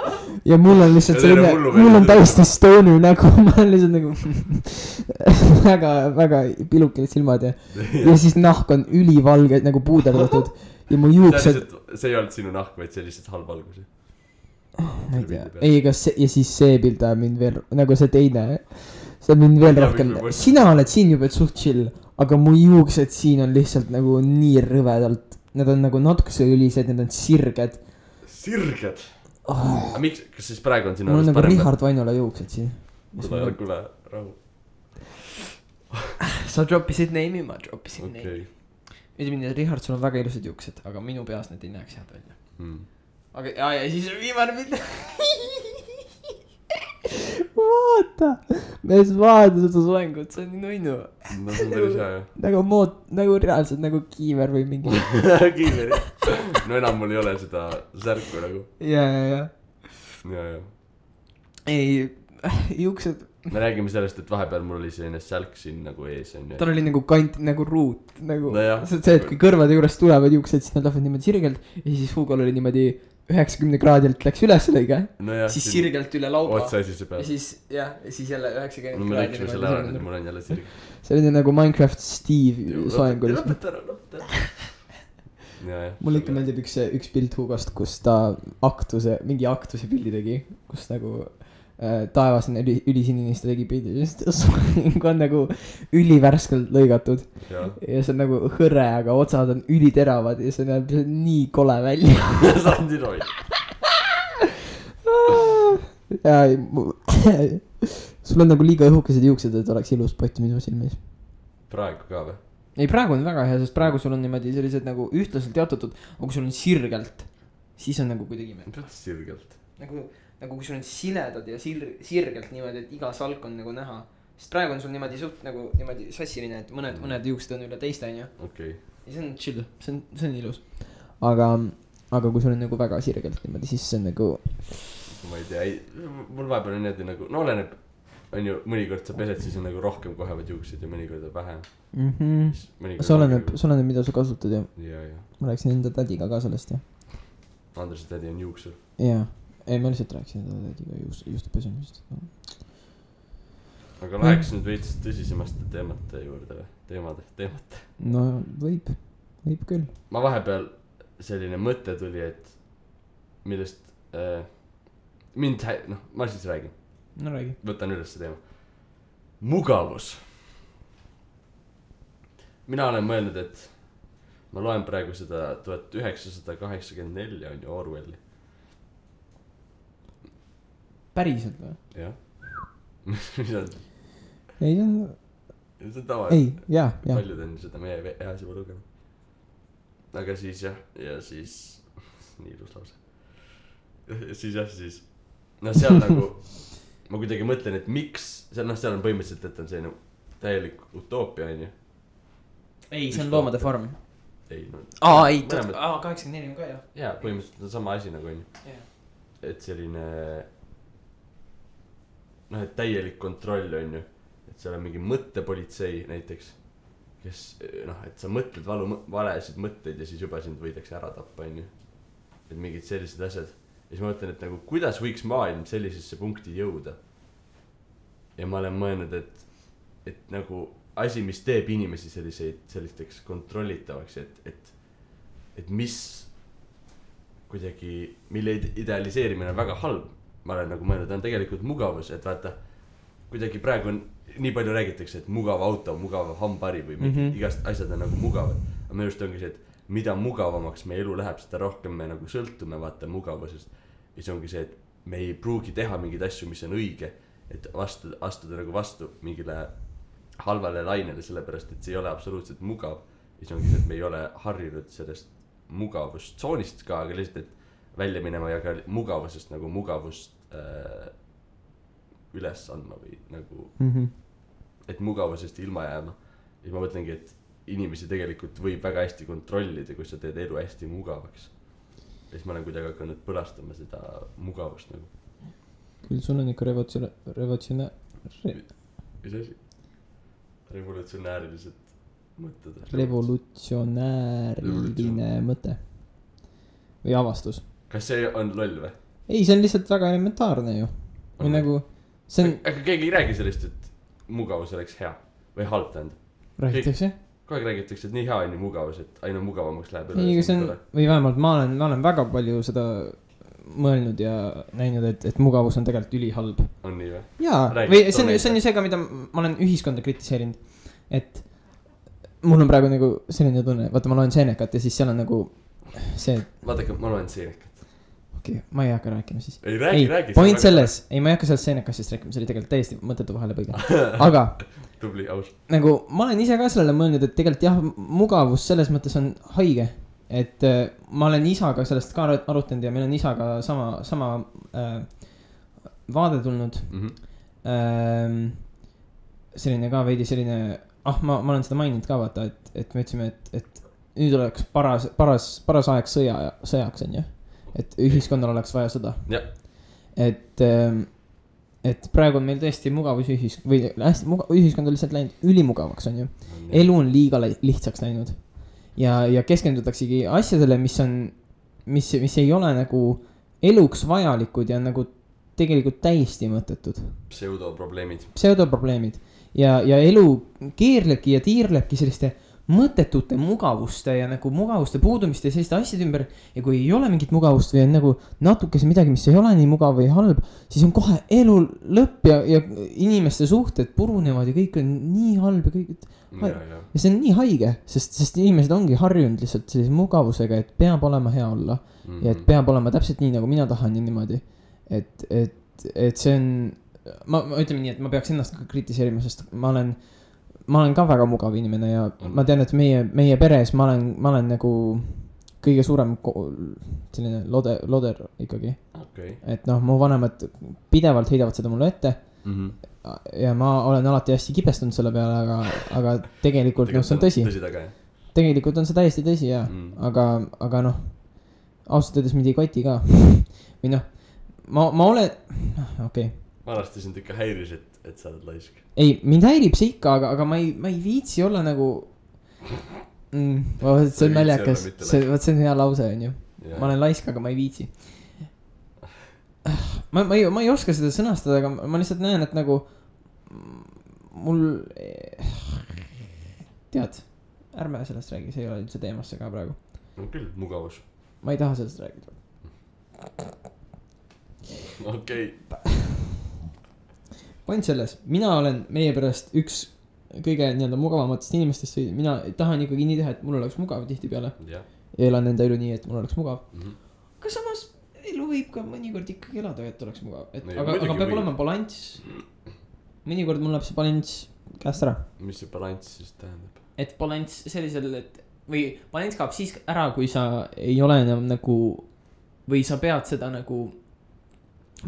ja mul on lihtsalt selline mul on täiesti stoner nägu ma olen lihtsalt nagu väga pilukid silmad ja siis nahk on ülivalge nagu puuderdatud ja mu juuksed see ei olnud sinu nahk vaid see lihtsalt halb valgus ma ei tea ei ega see ja siis see pilt ajab mind veel nagu see teine see on mind veel rohkem sina oled siin juba suht chill aga mu juuksed siin on lihtsalt nagu nii rõvedalt need on nagu natukese ülised need on sirged aga miks kas siis praegu on sinu mul on nagu Richard Vainola juuksed siin kuule rahu sa droppisid name'i ma droppisin name'i ütleme nii et Richard sul on väga ilusad juuksed aga minu peas need ei näeks head välja aga ja siis on viimane pilt vaata mees vaata seda soengut see on nii nunnu no see on päris hea jah nagu reaalselt nagu kiiver või mingi kiiver no enam mul ei ole seda särku nagu ja ei juuksed me räägime sellest et vahepeal mul oli selline sälk siin nagu ees onju tal oli nagu kant nagu ruut nagu no see et kui kõrvade juurest tulevad juuksed siis nad lähevad niimoodi sirgelt ja siis Hugol oli niimoodi 90 kraadilt läks üles lõige siis sirgelt üle lauba otsa esise peal ja siis jälle 90 no me lõiksime selle ära nüüd mul on jälle sirg see oli nagu Minecraft Steve soeng oli mulle ikka meeldib üks pilt Hugost kus ta mingi aktuse pildi tegi kus nagu taevas on ülisinine ta tegi pildi soeng on nagu ülivärskelt lõigatud ja see on nagu hõre aga otsad on üliteravad ja see näeb nii kole välja sandi roi ja sul on nagu liiga õhukesed juuksed et oleks ilus pott minu silmis praegu ka või? ei praegu on väga hea sest praegu sul on niimoodi sellised nagu ühtlaselt jaotatud aga kui sul on sirgelt siis on nagu kuidagi sirgelt nagu kui sul on siledad ja sirgelt niimoodi et iga salk on nagu näha sest praegu on sul niimoodi suht nagu niimoodi sassiline et mõned juuksed on üle teiste onju okei ja see on chill see on ilus aga kui sul on nagu väga sirgelt niimoodi siis see on nagu ma ei tea mul vahepeal on niimoodi nagu no oleneb on ju mõnikord sa pesed siis on nagu rohkem kohevad juuksed ja mõnikord on vähem see oleneb mida sa kasutad ja ma rääkisin enda tädiga ka sellest ja Andrese tädi on juuksur jaa ei ma lihtsalt rääkisin enda tädiga juustu pesemisest aga läheks nüüd veits tõsisemast teemate juurde või teemate no võib küll ma vahepeal selline mõte tuli et millest mind ma siis räägin no räägi võtan üles see teema mugavus mina olen mõelnud et ma loen praegu seda 1984 on ju Orwelli päriselt või? jah mis on? ei see on tavaline ei jaa paljud on seda meie eas juba lugenud aga siis jah, ja siis nii ilus lause. siis jah, siis noh, seal nagu ma kuidagi mõtlen, et miks seal noh, seal on põhimõtteliselt, et on selline täielik utoopia onju. ei, see on Loomade farm. ei no. ei, 84 on ka jah. jaa, põhimõtteliselt on sama asi nagu onju. et selline noh, et täielik kontroll onju, et seal on mingi mõttepolitsei näiteks, kes noh, et sa mõtled valesid mõtteid ja siis juba sind võidakse ära tappa onju. et mingid sellised asjad. ja siis ma mõtlen, et nagu kuidas võiks maailm sellisesse punkti jõuda. ja ma olen mõelnud, et nagu asi, mis teeb inimesi sellisteks kontrollitavaks, et mis kuidagi, mille idealiseerimine on väga halb. ma olen nagu mõelnud, on tegelikult mugavus, et vaata, kuidagi praegu on, nii palju räägitakse, et mugav auto, mugav hambari või igast asjad on nagu mugavad. aga minu arust ongi see, et mida mugavamaks meie elu läheb, seda rohkem me nagu sõltume vaata mugavusest. ja see ongi see, et me ei pruugi teha mingeid asju, mis on õige, et astuda nagu vastu mingile halvale lainele, sellepärast et see ei ole absoluutselt mugav. ja see ongi see, et me ei ole harjunud sellest mugavustsoonist ka, aga lihtsalt, et välja minema ja ka mugavusest nagu mugavust üles andma või nagu et mugavusest ilma jääma. ja siis ma mõtlengi, et inimesi tegelikult võib väga hästi kontrollida, kui sa teed elu hästi mugavaks. ja siis ma olen kuidagi hakanud põlastama seda mugavust nagu. küll sul on ikka mis asi? Revolutsionäärilised mõtted. Revolutsionääriline mõte või avastus. kas see on loll või? ei, see on lihtsalt väga elementaarne ju. või nagu see on. aga keegi ei räägi sellest, et mugavus oleks hea või halb tähendab. räägitakse? kogu aeg räägitakse, et nii hea on ju mugavus, et aina mugavamaks läheb. ei, see on, või vähemalt ma olen väga palju seda mõelnud ja näinud, et mugavus on tegelikult ülihalb. on nii või? jaa, või see on ju see ka, mida ma olen ühiskonda kritiseerinud. et mul on praegu nagu selline tunne, vaata ma loen Senecat ja siis seal on nagu see. vaadake, ma loen Senecat. okei, ma ei hakka rääkima siis. ei, räägi. Point selles, ei ma ei hakka sellest Senecastist rääkima, see oli tegelikult täiesti mõttetu vahelepõige. aga tubli, aus. nagu ma olen ise ka sellele mõelnud, et tegelikult jah, mugavus selles mõttes on haige. et ma olen isaga sellest ka arutanud ja meil on isaga sama vaade tulnud. selline ka veidi selline, ma olen seda maininud ka vaata, et me ütlesime, et nüüd oleks paras aeg sõjaks on ju. et ühiskonnal oleks vaja sõda. et praegu on meil tõesti mugavus või hästi ühiskond on lihtsalt läinud ülimugavaks on ju. elu on liiga lihtsaks läinud. ja keskendutaksegi asjadele, mis ei ole nagu eluks vajalikud ja nagu tegelikult täiesti mõttetud. Pseudoprobleemid. ja elu keerlebki ja tiirlebki selliste mõttetute mugavuste ja nagu mugavuste puudumiste ja selliste asjade ümber. ja kui ei ole mingit mugavust või on nagu natukese midagi, mis ei ole nii mugav või halb, siis on kohe elu lõpp ja inimeste suhted purunevad ja kõik on nii halb ja kõik. ja see on nii haige, sest inimesed ongi harjunud lihtsalt sellise mugavusega, et peab olema hea olla. ja et peab olema täpselt nii, nagu mina tahan ja niimoodi. et see on, ma ütleme nii, et ma peaks ennast ka kritiseerima, sest ma olen ka väga mugav inimene ja ma tean, et meie peres ma olen nagu kõige suurem selline loder ikkagi. et noh, mu vanemad pidevalt heidavad seda mulle ette. ja ma olen alati hästi kibestunud selle peale, aga tegelikult noh, see on tõsi. tegelikult on see täiesti tõsi ja aga noh, ausalt öeldes mind ei koti ka. või noh, ma olen, okei. vanasti sind ikka häiris, et sa oled laisk. ei, mind häirib see ikka, aga ma ei viitsi olla nagu see on naljakas, see on hea lause on ju. ma olen laisk, aga ma ei viitsi. ma ei oska seda sõnastada, aga ma lihtsalt näen, et nagu mul tead, ärme sellest räägi, see ei ole üldse teemasse ka praegu. no küll, mugavus. ma ei taha sellest rääkida. okei. point selles, mina olen meie pärast üks kõige nii-öelda mugavamatest inimestest või mina tahan ikkagi nii teha, et mul oleks mugav tihtipeale. ja elan enda elu nii, et mul oleks mugav. aga samas elu võib ka mõnikord ikkagi elada, et oleks mugav. aga peab olema balanss. mõnikord mul läheb see balanss käest ära. mis see balanss siis tähendab? et balanss sellisel, või balance kaob siis ära, kui sa ei ole enam nagu või sa pead seda nagu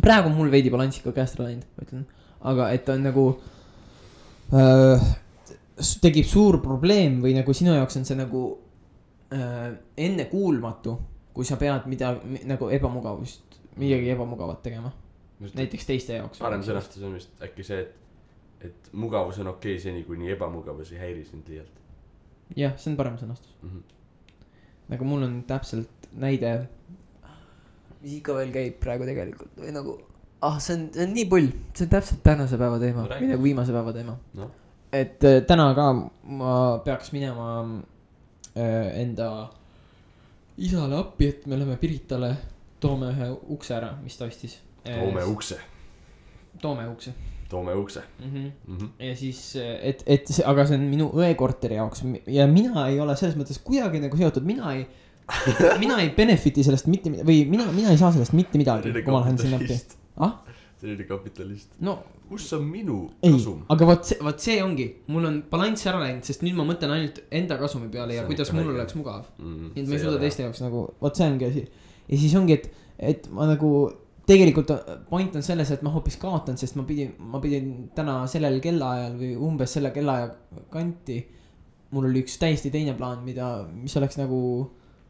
praegu mul veidi balanss ikka käest ära läinud, ma ütlen, aga et on nagu tekib suur probleem või nagu sinu jaoks on see nagu ennekuulmatu, kui sa pead midagi nagu midagi ebamugavat tegema. Näiteks teiste jaoks. Parem sõnastus on vist äkki see, et mugavus on okei seni, kui nii ebamugavus ei häiri sind liialt. Jah, see on parem sõnastus. Nagu mul on täpselt näide, mis ikka veel käib praegu tegelikult või nagu, see on nii pull, see on täpselt tänase päeva teema, või nagu viimase päeva teema no. Et täna ka ma peaks minema enda isale appi, et me läheme Piritale, toome ühe ukse ära, mis ta ostis. Toome ukse. Ja siis, aga see on minu õekorteri jaoks ja mina ei ole selles mõttes kuidagi nagu seotud, mina ei benefiti sellest mitte midagi või mina ei saa sellest mitte midagi, kui ma lähen sinna appi. See oli kapitalist. No, kus on minu kasum? Aga võt see ongi, mul on balanss ära läinud, sest nüüd ma mõtlen ainult enda kasumi peale ja kuidas mul oleks mugav. Nüüd ma ei suuda teiste jaoks nagu, võt see ongi asi. Ja siis ongi, et ma nagu tegelikult point on selles, et ma hoopis kaotan, sest ma pidin täna sellel kellaajal või umbes selle kellaaja kanti. Mul oli üks täiesti teine plaan, mis oleks nagu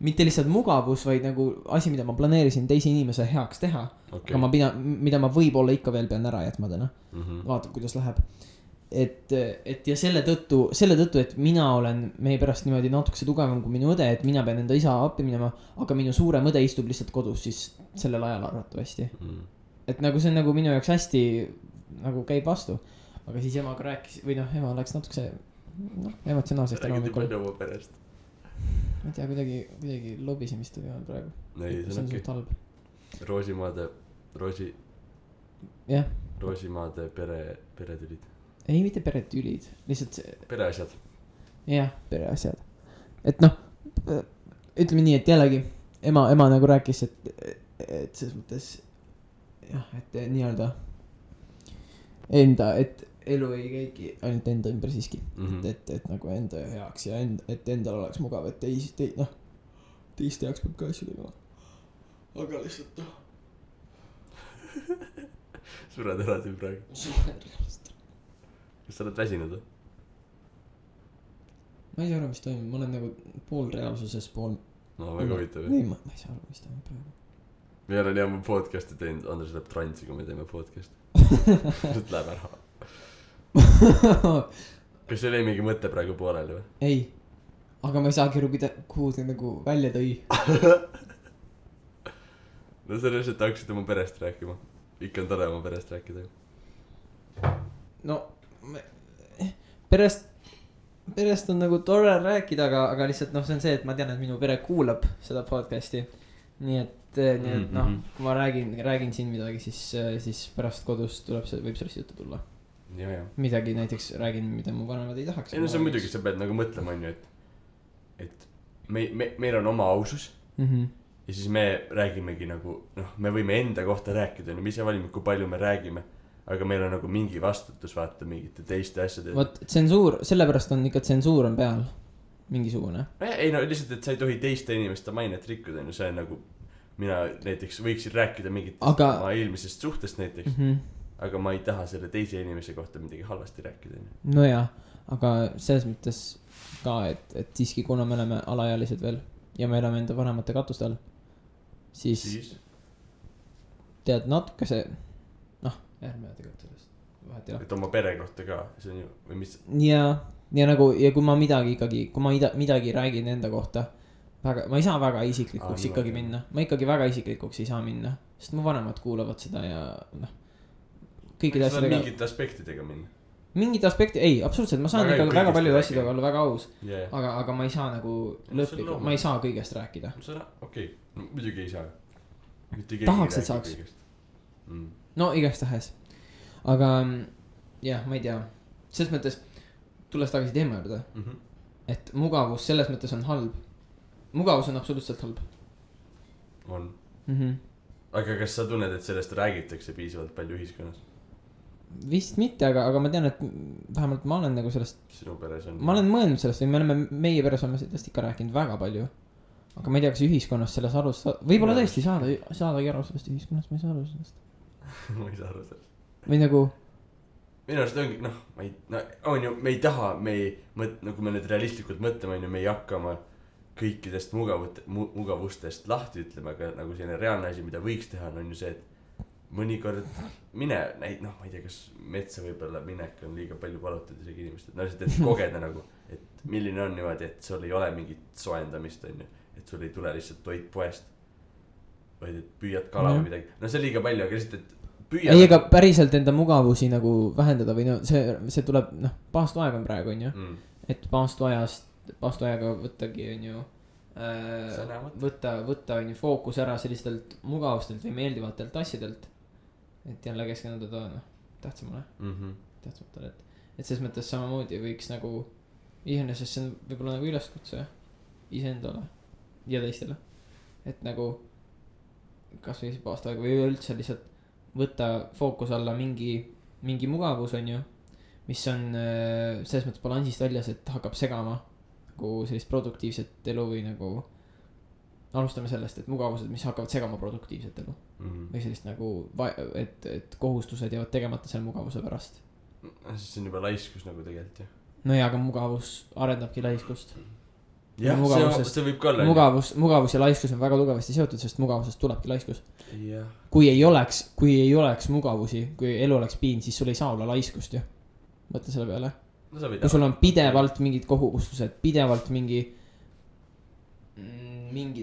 mitte lihtsalt mugavus, vaid nagu asi, mida ma planeerisin teise inimese heaks teha. Okay. Aga mida ma võib-olla ikka veel pean ära jätma täna. Vaatab, kuidas läheb. Et ja selle tõttu, et mina olen meie pärast niimoodi natukese tugevam kui minu õde, et mina pean enda isa appi minema, aga minu suurem õde istub lihtsalt kodus siis sellel ajal arvatavasti. Et nagu see on nagu minu jaoks hästi nagu käib vastu. Aga siis emaga rääkis, või ema läks natukese emotsionaalsest ära. Räägiti palju oma perest. Ma ei tea, kuidagi lobisemist oli praegu. See on suht halb. Roosimaade peretülid. Ei, mitte peretülid, lihtsalt see... Pereasjad. Jah, pereasjad. Et noh, ütleme nii, et jällegi ema nagu rääkis, et selles mõttes jah, et nii-öelda et elu ei käigi ainult enda ümber siiski. Et nagu enda heaks ja et endal oleks mugav, et teiste jaoks peab ka asju tegema. Aga lihtsalt Sured ära siin praegu. Kas sa oled väsinud või? Ma ei saa aru, mis toimub, ma olen nagu pool reaalsuses, pool... No väga huvitav. Ei, ma ei saa aru, mis toimub praegu. Me olen jah podcast'i teinud, Andres läheb transi, kui me teeme podcast'i. Nüüd läheb ära. Kas see oli mingi mõte praegu pooleli või? Ei, aga ma ei saagi aru, kuhu see nagu välja tõi. No sa lihtsalt hakkasid oma perest rääkima. Ikka on tore oma perest rääkida. No, perest on nagu tore rääkida, aga lihtsalt see on see, et ma tean, et minu pere kuulab seda podcast'i. Nii et kui ma räägin siin midagi, siis pärast kodus võib sellest juttu tulla. Ja. Midagi näiteks räägin, mida mu vanemad ei tahaks. Ei no see on muidugi, sa pead nagu mõtlema, et meil on oma ausus. Ja siis me räägimegi nagu, me võime enda kohta rääkida, me ise valime, kui palju me räägime. Aga meil on nagu mingi vastutus vaata mingite teiste asjade. Vot tsensuur, sellepärast on ikka tsensuur on peal. Mingisugune. Ei no lihtsalt, et sa ei tohi teiste inimeste mainet rikkuda. See on nagu, mina näiteks võiksin rääkida mingitest oma eelmisest suhtest näiteks. Aga ma ei taha selle teise inimese kohta midagi halvasti rääkida. No jah, aga selles mõttes ka, et siiski kuna me oleme alaealised veel ja me elame enda vanemate katuste all, siis tead natuke see ärme tegelikult sellest vahet ei ole. Et oma pere kohta ka, see on ju, või mis? Ja nagu, ja kui ma midagi räägin enda kohta, ma ei saa väga isiklikuks ikkagi minna. Ma ikkagi väga isiklikuks ei saa minna, sest mu vanemad kuulavad seda ja kõikide asjadega. Mingite aspektidega minna? Mingite aspekti, ei, absoluutselt, ma saan ikka väga palju asjadega olla väga aus. Aga ma ei saa nagu lõplikult, ma ei saa kõigest rääkida. Okei, muidugi ei saa. Tahaks, et saaks. No igast tahes. Aga jah, ma ei tea. Selles mõttes, tulles tagasi teema juurde, et mugavus selles mõttes on halb. Mugavus on absoluutselt halb. On. Aga kas sa tunned, et sellest räägitakse piisavalt palju ühiskonnas? vist mitte, aga ma tean, et vähemalt ma olen nagu sellest. Sinu peres on. Ma olen mõelnud sellest või me oleme, meie peres oleme sellest ikka rääkinud väga palju. Aga ma ei tea, kas ühiskonnas selles arus, võib-olla tõesti saadagi aru sellest ühiskonnast, ma ei saa aru sellest. Ma ei saa aru sellest. Või nagu. Minu arust ongi, on ju, me ei taha, nagu me nüüd realistlikult mõtleme, on ju, me ei hakkama kõikidest mugavustest lahti ütlema, aga nagu selline reaalne asi, mida võiks teha, on ju see, et mõnikord ma ei tea, kas metsa võib-olla minek on liiga palju palutud isegi inimesed, et kogeda nagu, et milline on niimoodi, et sul ei ole mingit soendamist, on ju, et sul ei tule lihtsalt toit poest, vaid et püüad kala või midagi, see on liiga palju, aga lihtsalt, et püüad. Ei, aga päriselt enda mugavusi nagu vähendada või see tuleb, paastu aeg on praegu, on ju, et paastu ajaga võttagi, on ju, võtta, on ju, fookus ära sellistelt mugavustelt või meeldivatelt asjadelt, et jälle keskenduda tähtsamale, tähtsamatele, et selles mõttes samamoodi võiks nagu, iseenesest see on võib-olla nagu üleskutse iseendale ja teistele, et nagu kas või paastu aega või üldse lihtsalt võtta fookus alla mingi mugavus, on ju, mis on selles mõttes balansist väljas, et hakkab segama nagu sellist produktiivset elu või nagu alustame sellest, et mugavused, mis hakkavad segama produktiivset elu või sellist nagu, et kohustused jäävad tegemata selle mugavuse pärast. Siis see on juba laiskus nagu tegelikult, jah. No jaa, aga mugavus arendabki laiskust. Jah, see võib ka olla. Mugavus ja laiskus on väga tugevasti seotud, sest mugavusest tulebki laiskus. Yeah. Kui ei oleks mugavusi, kui elu oleks piin, siis sul ei saa olla laiskust ju. Mõtle selle peale. Kui sul on pidevalt mingid kohustused, pidevalt mingid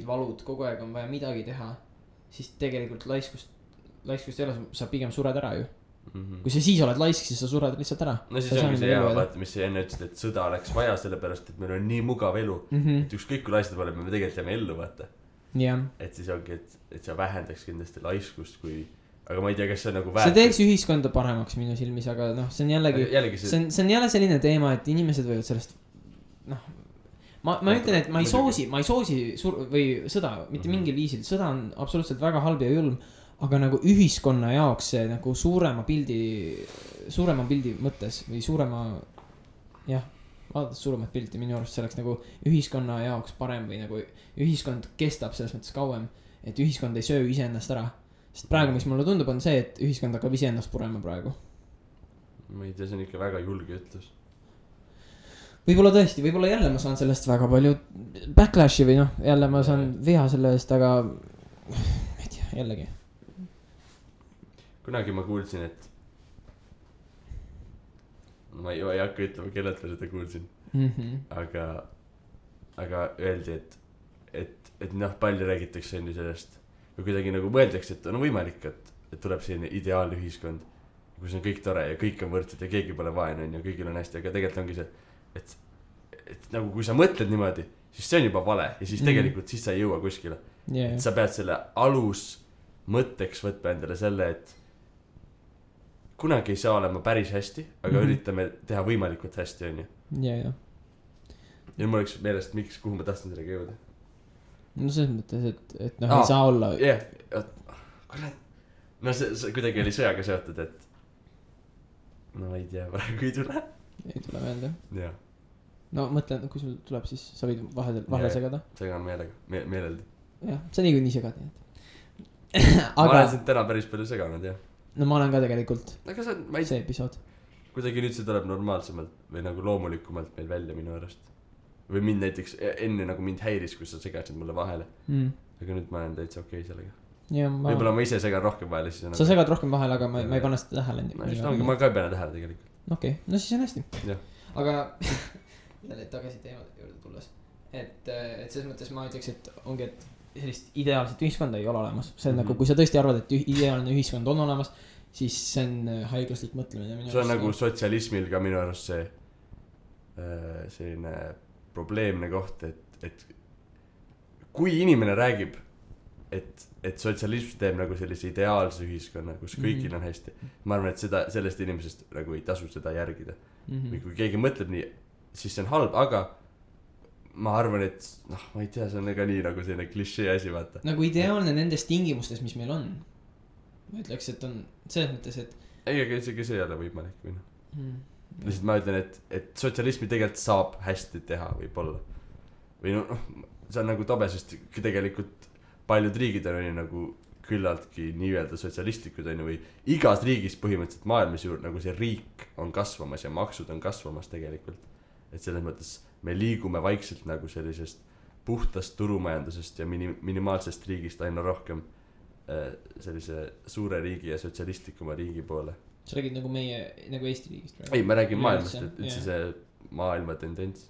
valud, kogu aeg on vaja midagi teha, siis tegelikult laiskust ei ole, sa pigem sured ära ju. Kui sa siis oled laisk, siis sa sured lihtsalt ära. No siis ongi see hea, vaata, mis sa enne ütlesid, et sõda oleks vaja sellepärast, et meil on nii mugav elu, et ükskõik kui laistud oleme, me tegelikult jääme ellu, vaata. Et siis ongi, et sa vähendaks kindlasti laiskust, kui aga ma ei tea, kas see on nagu see teeks ühiskonda paremaks minu silmis, aga see on jällegi see on jälle selline teema, et inimesed võivad sellest ma ütlen, et ma ei soosi või sõda mitte mingil viisil, sõda on absoluutselt väga halb ja julm, aga nagu ühiskonna jaoks see nagu suurema pildi mõttes või vaadates suuremat pilti, minu arust see oleks nagu ühiskonna jaoks parem või nagu ühiskond kestab selles mõttes kauem, et ühiskond ei söö iseennast ära. Sest praegu, mis mulle tundub, on see, et ühiskond hakkab iseennast purema praegu. Ma ei tea, see on ikka väga julge ütlus. Võib-olla tõesti, võib-olla jälle ma saan sellest väga palju backlashi või jälle ma saan viha selle eest, aga ma ei tea, jällegi. Kunagi ma kuulsin, et ma ei hakka ütlema, kellelt ma seda kuulsin. Aga öeldi, et palju räägitakse enne sellest või kuidagi nagu mõeldakse, et on võimalik, et tuleb selline ideaalne ühiskond, kus on kõik tore ja kõik on võrdsed ja keegi pole vaene ja kõigil on hästi, aga tegelikult ongi see, et nagu kui sa mõtled niimoodi, siis see on juba vale ja siis tegelikult siis sa ei jõua kuskile. Et sa pead selle alus mõtteks võtma endale selle, et kunagi ei saa olema päris hästi, aga üritame teha võimalikult hästi, on ju. Ja mul oleks meelest, kuhu ma tahtsin sellega jõuda. No selles mõttes, et ei saa olla. Kurat. No see kuidagi oli sõjaga seotud, et no ei tea, praegu ei tule. Ei tule meelde. Jah. No mõtlen, kui sul tuleb, siis sa võid vahele segada. Segan meeleldi. Jah, sa niikuinii segad. Ma olen sind täna päris palju seganud, jah. No ma olen ka tegelikult. Aga see episood. Kuidagi nüüd see tuleb normaalsemalt või nagu loomulikumalt meil välja minu arust. Või mind näiteks enne nagu mind häiris, kui sa segasid mulle vahele. Aga nüüd ma olen täitsa okei sellega. Võib-olla ma ise segan rohkem vahele. Sa segad rohkem vahele, aga ma ei pane seda tähele. Ma ka ei pane tähele tegelikult. Okei, no siis on hästi. Ja. Aga jälle tagasi teemade juurde tulles. Et selles mõttes ma ütleks, et ongi, et sellist ideaalset ühiskonda ei ole olemas. See on nagu, kui sa tõesti arvad, et ideaalne ühiskond on olemas, siis see on haiglaslik mõtlemine. See on nagu sotsialismil ka minu arust see selline probleemne koht, et kui inimene räägib, et sotsialism teeb nagu sellise ideaalse ühiskonna, kus kõigil on hästi, ma arvan, et sellest inimesest nagu ei tasu seda järgida. Või kui keegi mõtleb nii, siis see on halb, aga ma arvan, et ma ei tea, see on ka nii nagu selline klišee asi, vaata. Nagu ideaalne nendes tingimustes, mis meil on. Ma ütleks, et on selles mõttes, et ei, aga isegi see ei ole võimalik või noh lihtsalt ma ütlen, et sotsialismi tegelikult saab hästi teha võib-olla või noh, see on nagu tobe, sest tegelikult paljud riigid on nagu küllaltki nii-öelda sotsialistlikud on ju või igas riigis põhimõtteliselt maailmas ju nagu see riik on kasvamas ja maksud on kasvamas tegelikult, et selles mõttes me liigume vaikselt nagu sellisest puhtast turumajandusest ja minimaalsest riigist aina rohkem sellise suure riigi ja sotsialistlikuma riigi poole. Sa räägid nagu meie, nagu Eesti riigist praegu? Ei, ma räägin maailmast, et üldse see maailma tendents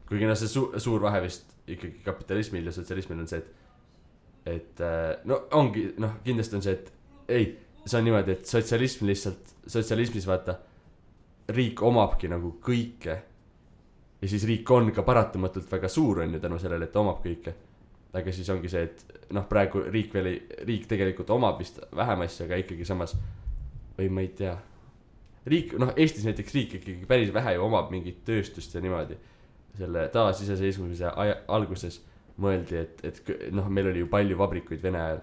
kuigi noh, see suur vahe vist ikkagi kapitalismil ja sotsialismil on see, et no ongi, noh kindlasti on see, et ei, see on niimoodi, et sotsialism lihtsalt, sotsialismis vaata riik omabki nagu kõike ja siis riik on ka paratamatult väga suur on ju tänu sellele, et ta omab kõike, aga siis ongi see, et noh praegu riik tegelikult omab vist vähem asja, aga ikkagi samas või ma ei tea riik, noh Eestis näiteks riik ikkagi päris vähe ju omab mingit tööstust ja niimoodi selle taasiseseisvumise alguses mõeldi, et noh meil oli ju palju vabrikuid Vene ajal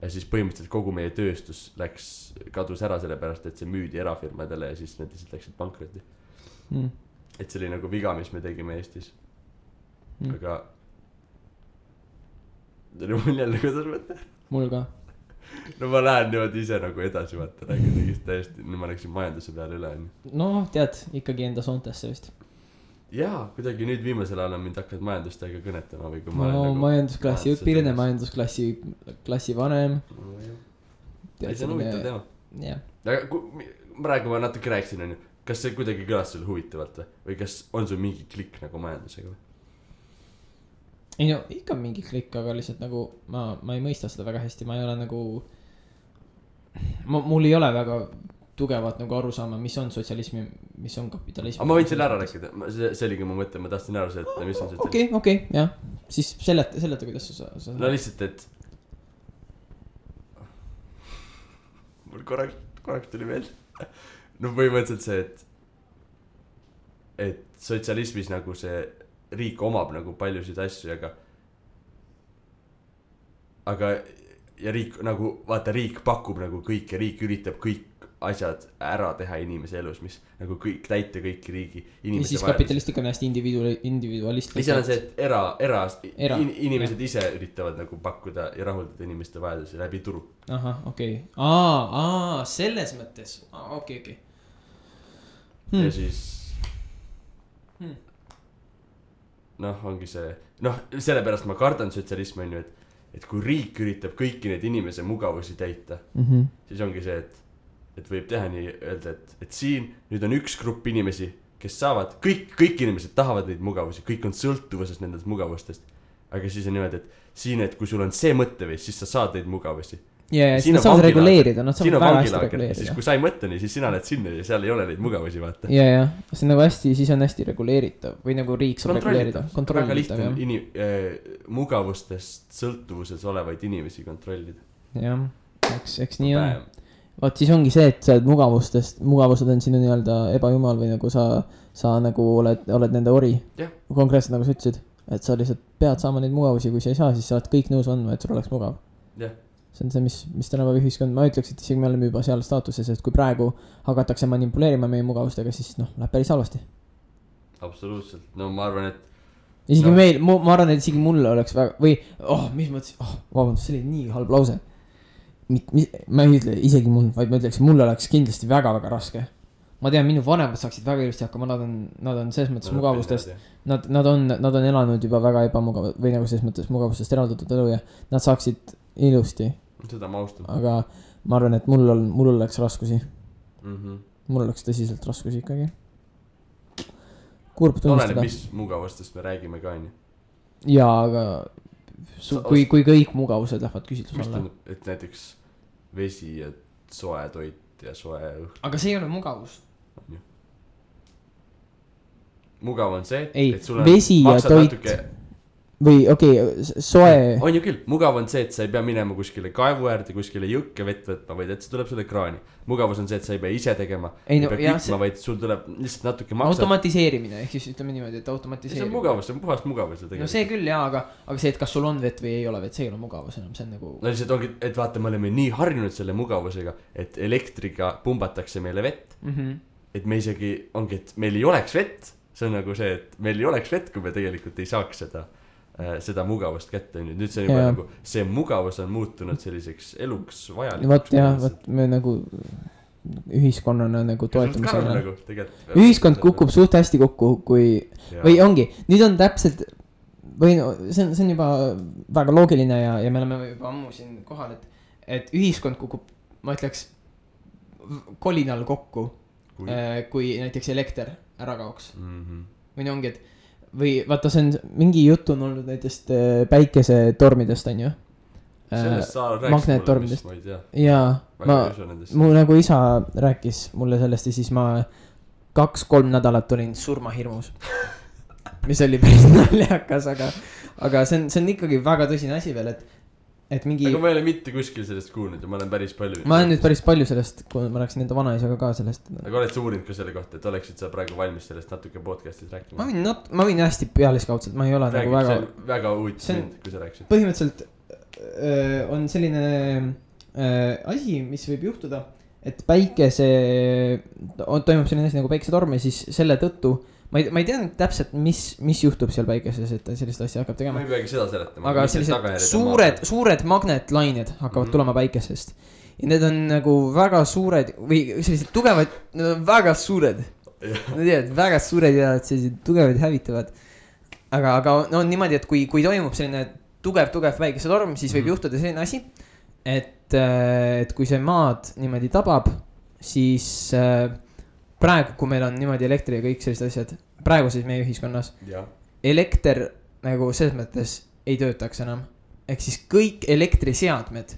ja siis põhimõtteliselt kogu meie tööstus kadus ära sellepärast, et see müüdi erafirmadele ja siis need lihtsalt läksid pankrotti et see oli nagu viga, mis me tegime Eestis aga mul jälle kuidas mõte mul ka no ma lähen niimoodi ise nagu edasi vaata, räägin tegist täiesti, nüüd ma läksin majanduse peale üle no tead, ikkagi enda soontesse vist jaa, kuidagi nüüd viimasel ajal on mind hakanud majandustega kõnetama või kui ma olen nagu majandusklassi õpilane, majandusklassi vanem ei, see on huvitav teema aga praegu ma natuke rääkisin on ju, kas see kuidagi kõlas sulle huvitavalt või kas on sul mingi klikk nagu majandusega või? ei no ikka mingi klikk, aga lihtsalt nagu ma ei mõista seda väga hästi, ma ei ole nagu mul ei ole väga tugevat nagu aru saama, mis on sotsialism ja mis on kapitalism. aga ma võin selle ära rääkida, see oligi mu mõte, ma tahtsin ära seleta, mis on sotsialism. okei, jah, siis seleta, kuidas sa no lihtsalt, et mul korraks tuli meelde no põhimõtteliselt see, et sotsialismis nagu see riik omab nagu paljusid asju, aga ja riik nagu, vaata riik pakub nagu kõik ja riik üritab kõik asjad ära teha inimese elus, mis nagu kõik täita kõiki riigi inimese ja siis kapitalistlik on hästi individualistlik. mis on see, et inimesed ise üritavad nagu pakkuda ja rahuldada inimeste vajadusi läbi turu. Ahah, okei. Selles mõttes. Okei. Ja siis noh, ongi see noh, sellepärast ma kardan sotsialismi on ju, et kui riik üritab kõiki neid inimese mugavusi täita siis ongi see, et võib teha nii öelda, et siin nüüd on üks grupp inimesi, kes saavad kõik inimesed tahavad neid mugavusi, kõik on sõltuvuses nendest mugavustest, aga siis on niimoodi, et siin, et kui sul on see mõtteviis, siis sa saad neid mugavusi ja siis nad saavad reguleerida, nad saavad väga hästi reguleerida. Siis kui sa ei mõtle nii, siis sina lähed sinna ja seal ei ole neid mugavusi vaata. Ja, see on nagu hästi, siis on hästi reguleeritav või nagu riik saab reguleerida. Väga lihtne mugavustest sõltuvuses olevaid inimesi kontrollida. Jah, eks nii on. Vaat siis ongi see, et sa oled mugavused on sinu nii-öelda ebajumal või nagu sa nagu oled nende ori. Konkreetselt nagu sa ütlesid, et sa lihtsalt pead saama neid mugavusi, kui sa ei saa, siis sa oled kõik nõus andma, et sul oleks mugav. See on see, mis tänapäeva ühiskond, ma ütleks, et isegi me oleme juba seal staatuses, et kui praegu hakatakse manipuleerima meie mugavustega, siis läheb päris halvasti. Absoluutselt, no ma arvan, et isegi meil, ma arvan, et isegi mulle oleks väga, või, mis mõttes, vabandust, see oli nii halb lause. Ma ei ütle isegi mul, vaid ma ütleks, mulle oleks kindlasti väga-väga raske. Ma tean, minu vanemad saaksid väga ilusti hakkama, nad on selles mõttes mugavustest, nad on elanud juba väga ebamugav, või nagu selles mõttes mugavustest eraldatud elu ja nad saaksid ilusti. Seda ma austan. Aga ma arvan, et mul oleks raskusi. Mul oleks tõsiselt raskusi ikkagi. Kurb tunnistada. Oleneb, mis mugavustest me räägime ka, nii? Jaa, aga kui kõik mugavused lähevad küsitlus alla. Et näiteks vesi ja soe toit ja soe õhk. Aga see ei ole mugavus. Mugav on see, et sul on vesi ja toit. või okei, soe. On ju küll, mugav on see, et sa ei pea minema kuskile kaevu äärde, kuskile jõkke vett võtma, vaid et see tuleb sulle kraani. Mugavus on see, et sa ei pea ise tegema, ei pea kütma, vaid sul tuleb lihtsalt natuke maksad. Automatiseerimine, ehk siis ütleme niimoodi, et automatiseerimine. See on mugavus, see on puhast mugavus. No see küll jaa, aga see, et kas sul on vett või ei ole vett, see ei ole mugavus enam, see on nagu. No lihtsalt ongi, et vaata, me oleme nii harjunud selle mugavusega, et elektriga pumbatakse meile vett. Et me isegi ongi, et meil ei oleks vett. See on nagu see, et meil ei oleks vett, kui me tegelikult ei saaks seda mugavust kätte. Nüüd see on juba nagu, see mugavus on muutunud selliseks eluks vajalikuks. Vot jah, vot me nagu ühiskonnana nagu toetame selle. Nagu, ühiskond kukub suht hästi kokku, kui või ongi, nüüd on täpselt või no, see on juba väga loogiline ja me oleme juba ammu siin kohal, et ühiskond kukub, ma ütleks, kolinal kokku, kui näiteks elekter ära kaoks. Või ongi, et või vaata, see on mingi jutt on olnud näitest päikesetormidest, on ju. Magnettormidest. Jaa, mu nagu isa rääkis mulle sellest ja siis ma 2-3 nädalat olin surmahirmus. Mis oli päris naljakas, aga see on ikkagi väga tõsine asi veel, et mingi. Aga ma ei ole mitte kuskil sellest kuulnud ja ma olen päris palju. Ma olen nüüd päris palju sellest, kui ma rääksin enda vanaisaga ka sellest. Aga oled sa uurinud ka selle kohta, et oleksid sa praegu valmis sellest natuke podcastis rääkima? Ma võin hästi pealiskaudselt, ma ei ole räägib, nagu väga. Väga huvitav mind, kui sa rääksid. Põhimõtteliselt on selline asi, mis võib juhtuda, et toimub selline asi nagu päikesetorm ja siis selle tõttu ma ei tea täpselt, mis juhtub seal päikeses, et sellist asja hakkab tegema. Ma ei peagi seda seletama. Aga sellised suured magnetlained hakkavad tulema päikesest. Ja need on nagu väga suured või sellised tugevad, need on väga suured. Nad teavad, väga suured ja sellised tugevad hävitavad. Aga no niimoodi, et kui toimub selline tugev päikesetorm, siis võib juhtuda selline asi, et kui see maad niimoodi tabab, siis praegu, kui meil on niimoodi elektri ja kõik sellised asjad, praegu siis meie ühiskonnas, elekter nagu selles mõttes ei töötaks enam. Ehk siis kõik elektriseadmed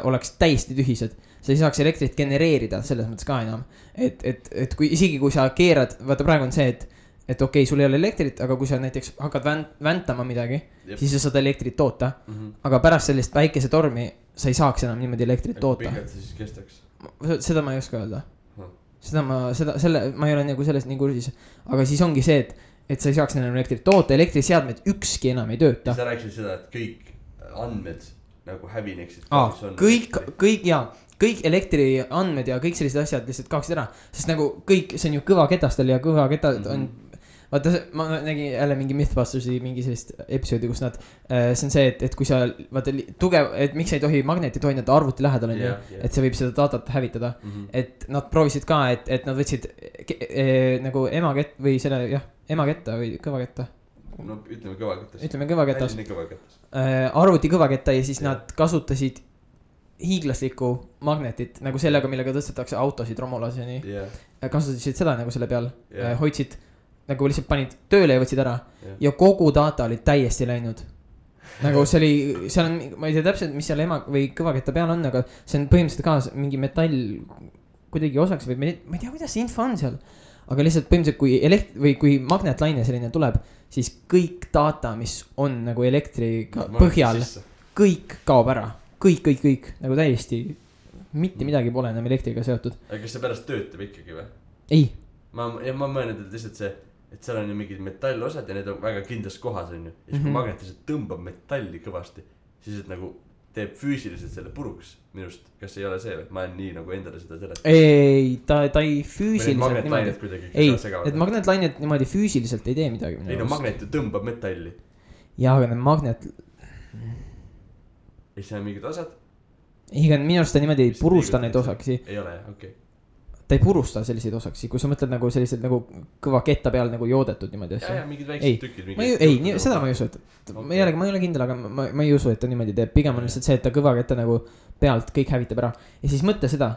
oleks täiesti tühised. Sa ei saaks elektrit genereerida selles mõttes ka enam. Et kui isegi kui sa keerad, vaata praegu on see, et okei, sul ei ole elektrit, aga kui sa näiteks hakkad väntama midagi, siis sa saad elektrit toota. Aga pärast sellist päikesetormi sa ei saaks enam niimoodi elektrit toota. Pikalt see siis kestaks? Seda ma ei oska öelda. Ma ei ole nagu sellest nii kursis, aga siis ongi see, et sa ei saaks enam elektrit toota, elektriseadmed ükski enam ei tööta. Sa rääkisid seda, et kõik andmed nagu hävineksid. Kõik elektriandmed ja kõik sellised asjad lihtsalt kaoksid ära, sest nagu kõik, see on ju kõvaketastel ja kõvaketad on, vaata, ma nägin jälle mingi Mythbustersi mingi sellist episoodi, kus nad, see on see, et kui sa, vaata, tugev, et miks ei tohi magnetit hoida arvuti lähedal on ju, et see võib seda datat hävitada, et nad proovisid ka, et nad võtsid nagu emakett või selle, emaketta või kõvaketta. No ütleme kõvaketas. Arvuti kõvaketta ja siis nad kasutasid hiiglaslikku magnetit nagu sellega, millega tõstetakse autosid romulaseni. Kasutasid seda nagu selle peal, hoidsid nagu lihtsalt panid tööle ja võtsid ära ja kogu data oli täiesti läinud. Nagu see oli, seal on, ma ei tea täpselt, mis seal või kõvaketta peal on, aga see on põhimõtteliselt ka mingi metall kuidagi osaks või ma ei tea, kuidas see info on seal. Aga lihtsalt põhimõtteliselt, kui magnetlaine selline tuleb, siis kõik data, mis on nagu elektriga põhjal, kõik kaob ära. Kõik, nagu täiesti mitte midagi pole enam elektriga seotud. Aga kas see pärast töötab ikkagi või? Ei. Ma mõelnud, et lihtsalt see, et seal on ju mingid metallosad ja need on väga kindlas kohas on ju. Ja siis kui magnetiliselt tõmbab metalli kõvasti, siis et nagu teeb füüsiliselt selle puruks minust. Kas ei ole see või? Ma olen nii nagu endale seda sellest. Ei, ta ei füüsiliselt niimoodi. Ei, et magnetlainet niimoodi füüsiliselt ei tee midagi. Ei no magnet ju tõmbab metalli. Jaa, aga need magnet... Ei see on mingid osad? Ei, aga minu arust ta niimoodi ei purusta neid osaksi. Ei ole, okei. Ta ei purusta selliseid osaksi, kui sa mõtled nagu sellised nagu kõva ketta peal nagu joodetud niimoodi asja. Ja, mingid väiksed tükid. Ei, seda ma ei usu, et ma ei ole kindel, aga ma ei usu, et ta niimoodi teeb. Pigem on lihtsalt see, et ta kõva ketta nagu pealt kõik hävitab ära. Ja siis mõtle seda,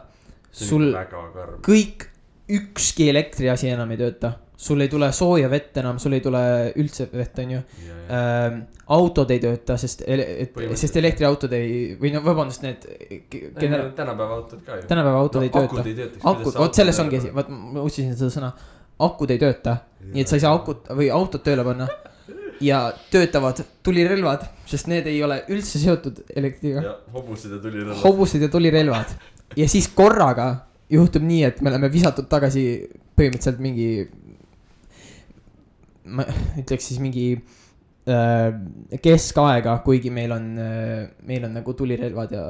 sul kõik ükski elektriasi enam ei tööta. Sul ei tule sooja vett enam, sul ei tule üldse vett, on ju. Autod ei tööta, sest elektriautod ei, või no vabandust, need tänapäeva autod ka ju. Tänapäeva autod ei tööta. Akud ei tööta. Vot selles ongi, ma otsisin seda sõna. Akud ei tööta, nii et sa ei saa autot tööle panna. ja töötavad tulirelvad, sest need ei ole üldse seotud elektriga. ja hobused ja tulirelvad. Ja siis korraga juhtub nii, et me oleme visatud tagasi põhimõtteliselt mingi, ma ütleks siis mingi keskaega, kuigi meil on nagu tulirelvad ja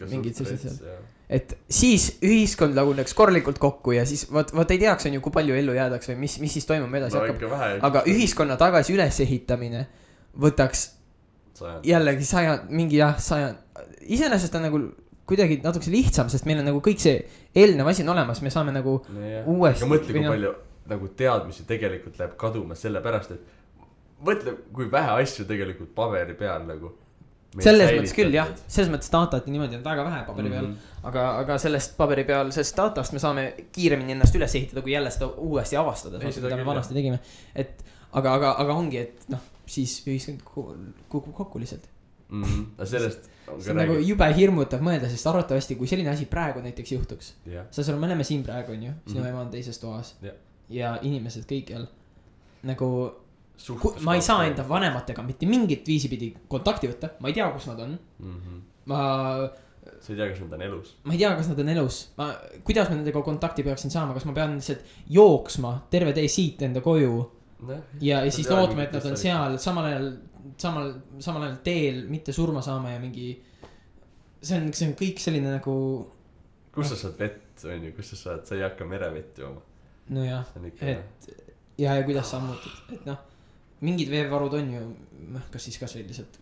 mingid sellised seal. Et siis ühiskond laguneks korralikult kokku ja siis vaat ei teaks on ju, kui palju ellu jäädaks või mis siis toimub edasi hakkab. Aga ühiskonna tagasi ülesehitamine võtaks jällegi mingi 100. Iseenesest on nagu kuidagi natuke lihtsam, sest meil on nagu kõik see eelnev asi on olemas, me saame nagu uuesti. Aga mõtle, kui palju nagu teadmisi tegelikult läheb kaduma selle pärast, et mõtle, kui vähe asju tegelikult paberi peal nagu. Selles mõttes küll jah, selles mõttes datat niimoodi on väga vähe paberi peal, aga sellest paberi peal, sellest datast me saame kiiremini ennast üles ehitada, kui jälle seda uuesti avastada, mida me vanasti tegime. Et, aga ongi, et siis ühiskond kukub kokku lihtsalt. Sellest see on nagu jube hirmutav mõelda, sest arvatavasti, kui selline asi praegu näiteks juhtuks, me oleme siin praegu, on ju, sinu ema on teises toas ja inimesed kõikjal nagu ma ei saa enda vanematega mitte mingit viisi pidi kontakti võtta, ma ei tea, kus nad on. Sa ei tea, kas nad on elus? Ma ei tea, kas nad on elus. Kuidas ma nendega kontakti peaksin saama, kas ma pean lihtsalt jooksma terve tee siit enda koju ja siis lootma, et nad on seal samal ajal teel mitte surma saama ja mingi see on kõik selline nagu kus sa saad vett, on ju, kus sa ei hakka merevett jooma. No jah, et ja kuidas sa muutud, et mingid veevarud on ju, kas siis kas või lihtsalt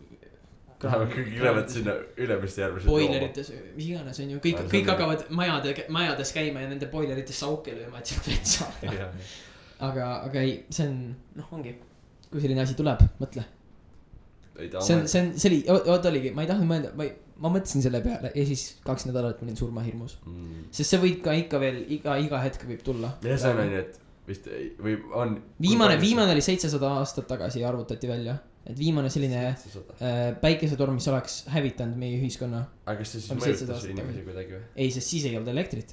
kõik lähevad sinna Ülemiste järvesse boilerites, mis iganes on ju, kõik hakkavad majades käima ja nende boilerites sauke lööma, et sealt vett saada. Aga ei, see on, ongi, kui selline asi tuleb, mõtle. See oligi, ma ei tahtnud mõelda, ma mõtlesin selle peale ja siis 2 nädalat ma olin surmahirmus. Sest see võib ka ikka veel, iga hetk võib tulla. Ja see on et vist või on viimane oli 700 aastat tagasi arvutati välja, et viimane selline päikesetorm, mis oleks hävitanud meie ühiskonna. Aga kas see siis mõjutas inimesi kuidagi või? Ei, sest siis ei olnud elektrit.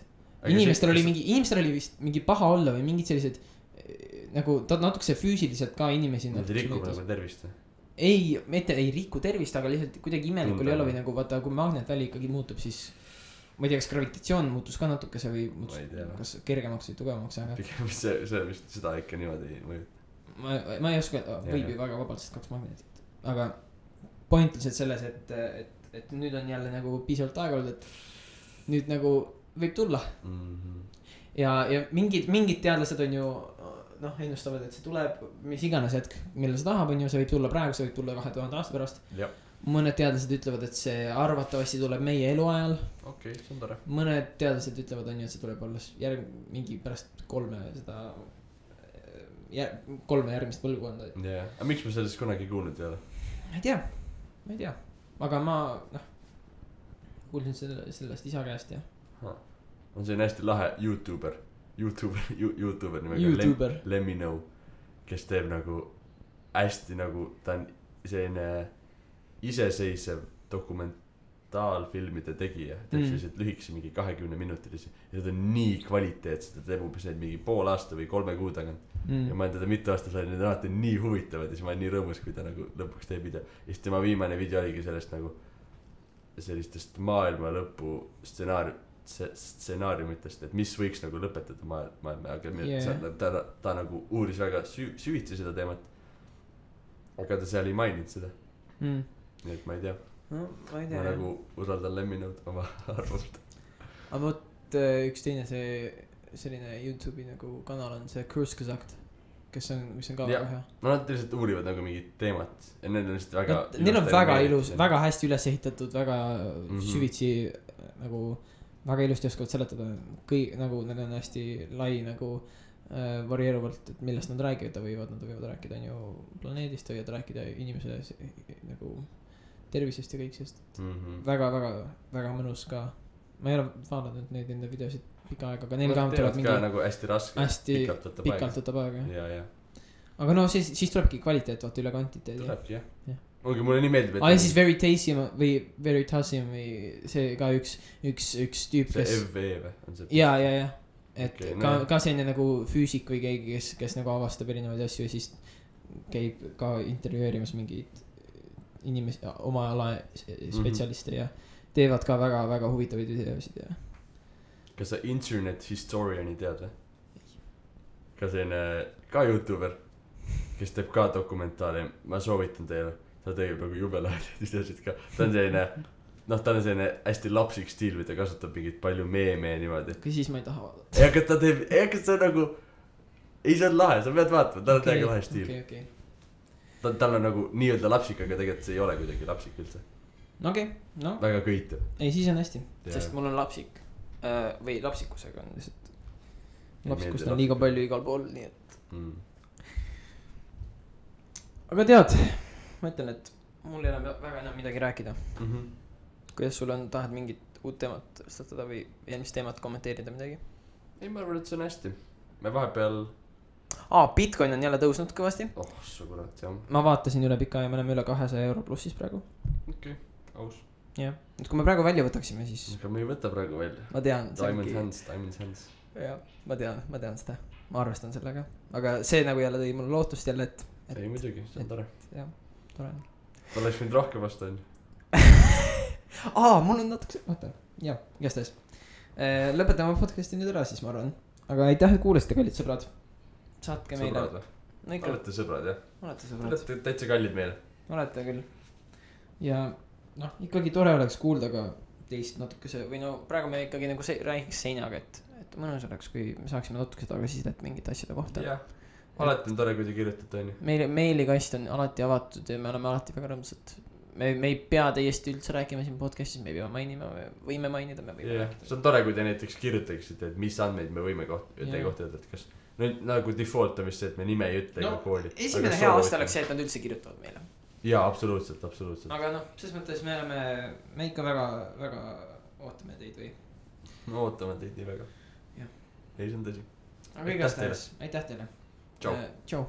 Inimestel oli vist mingi paha olla või mingid sellised nagu natukese füüsiliselt ka inimesi. Nad ei riku nagu tervist või? Ei, mitte ei riku tervist, aga lihtsalt kuidagi imelik oli olla või nagu vaata, kui magnetväli ikkagi muutub, siis ma ei tea, kas gravitatsioon muutus ka natukese või muutus, kas kergemaks või tugevamaks, aga pigem see vist seda ikka niimoodi mõjutab. Ma ei oska, võib ju väga vabalt sest 2 magnetit, aga point lihtsalt selles, et nüüd on jälle nagu piisavalt aega olnud, et nüüd nagu võib tulla. Ja mingid teadlased on ju ennustavad, et see tuleb mis iganes hetk, millal see tahab, on ju, see võib tulla praegu, see võib tulla 2000 aasta pärast. Mõned teadlased ütlevad, et see arvatavasti tuleb meie eluajal. Okei, see on tore. Mõned teadlased ütlevad, on ju, et see tuleb alles mingi pärast 3 järgmist põlvkonda. Aga miks me sellest kunagi kuulnud ei ole? Ma ei tea, aga ma kuulsin sellest isa käest ja on see hästi lahe YouTuber nimega Lemmi Nõu, kes teeb nagu hästi nagu ta on selline iseseisev dokumentaalfilmide tegija, teeb sellised lühikese mingi 20-minutilisi ja ta on nii kvaliteetsed, ta teeb umbes neid mingi pool aasta või 3 kuu tagant ja ma olen teda mitu aastat saanud, need on alati nii huvitavad ja siis ma olen nii rõõmus, kui ta nagu lõpuks teeb video ja siis tema viimane video oligi sellest nagu sellistest maailma lõpu stsenaariumitest, et mis võiks nagu lõpetada maailma, aga ta nagu uuris väga süvitsi seda teemat, aga ta seal ei maininud seda. Nii et ma ei tea. Ma nagu usaldan Lemmi Nõud oma arvust. Aga võt üks teine selline YouTube'i nagu kanal on see Cruise Kazakt, mis on ka väga hea. No nad lihtsalt uurivad nagu mingit teemat ja need on lihtsalt väga neil on väga ilus, väga hästi üles ehitatud, väga süvitsi nagu väga ilusti oskavad seletada nagu neil on hästi lai nagu varieeruvalt, et millest nad räägivad, nad võivad rääkida on ju planeedist, võivad rääkida inimese nagu tervisest ja kõik sest väga mõnus ka. Ma ei ole vaadanud neid enda videosid pikka aega, aga neil ka tulevad mingi nagu hästi raske, pikalt võtab aega. Aga no siis tulebki kvaliteet vaata üle kvantiteedi. Tulebki jah. Ongi mulle nii meeldib, et siis Veritasium või see ka üks tüüp, kes see FV või on see? Ja et ka selline nagu füüsik või keegi, kes nagu avastab erinevaid asju ja siis käib ka intervjueerimas mingeid inimesi, oma ala spetsialiste ja teevad ka väga-väga huvitavaid videosid ja. Kas sa internet historiani tead või? Ka selline, ka YouTuber, kes teeb ka dokumentaari, ma soovitan teile, ta teeb nagu jubelaid videosid ka, ta on selline, ta on selline hästi lapsik stiil või ta kasutab mingit palju meeme ja niimoodi. Kui siis ma ei taha vaadata. Aga ta teeb, kas see on nagu, ei see on lahe, sa pead vaatama, tal on täiega lahe stiil. Okay. Tal on nagu nii-öelda lapsik, aga tegelikult see ei ole kuidagi lapsik üldse. Okei, no. Väga köitu. Ei, siis on hästi, sest mul on lapsik või lapsikusega on lihtsalt lapsikust on liiga palju igal pool, nii et Aga tead, ma ütlen, et mul ei ole väga enam midagi rääkida. Kuidas sul on, tahad mingit uut teemat tõstatada või eelmist teemat kommenteerida midagi? Ei, ma arvan, et see on hästi. Me vahepeal Bitcoin on jälle tõusnud kõvasti. Su kurat, jah. Ma vaatasin üle pika ja me oleme üle 200 euro plussis praegu. Okei, aus. Jah, et kui me praegu välja võtaksime, siis aga me ei võta praegu välja. Ma tean Diamond hands. Jah, ma tean seda. Ma arvestan sellega. Aga see nagu jälle tõi mulle lootust jälle, et ei muidugi, see on tore. Jah, tore. Ta oleks mind rohkem vastu on. Mul on natuke vaata. Jah, igastahes. Lõpetame podcasti nüüd ära siis, ma arvan. Aga aitäh, et kuulasite, kallid sõbrad. Saatke meile. Olete sõbrad, jah? Olete sõbrad. Olete täitsa kallid meile. Olete küll. Ja ikkagi tore oleks kuulda ka teist natukese või praegu me ikkagi nagu räägiks seinaga, et mõnus oleks, kui me saaksime natukese tagasisidet mingite asjade kohta. Jah, alati on tore, kui te kirjutate, on ju. Meilikast on alati avatud ja me oleme alati väga rõõmsad. Me ei pea täiesti üldse rääkima siin podcastis, me ei pea mainima, me võime mainida, me võime rääkida. See on tore, kui te näiteks kirjutaksite, et mis andmeid me võime teie kohta öelda, et kas nagu default on vist see, et me nime ei ütle ega kooli. Esimene hea aasta oleks see, et nad üldse kirjutavad meile. Jaa, absoluutselt. Aga selles mõttes me ikka väga ootame teid või? Me ootame teid nii väga. Jah. Ei, see on tõsi. Aga igastahes, aitäh teile. Tšau.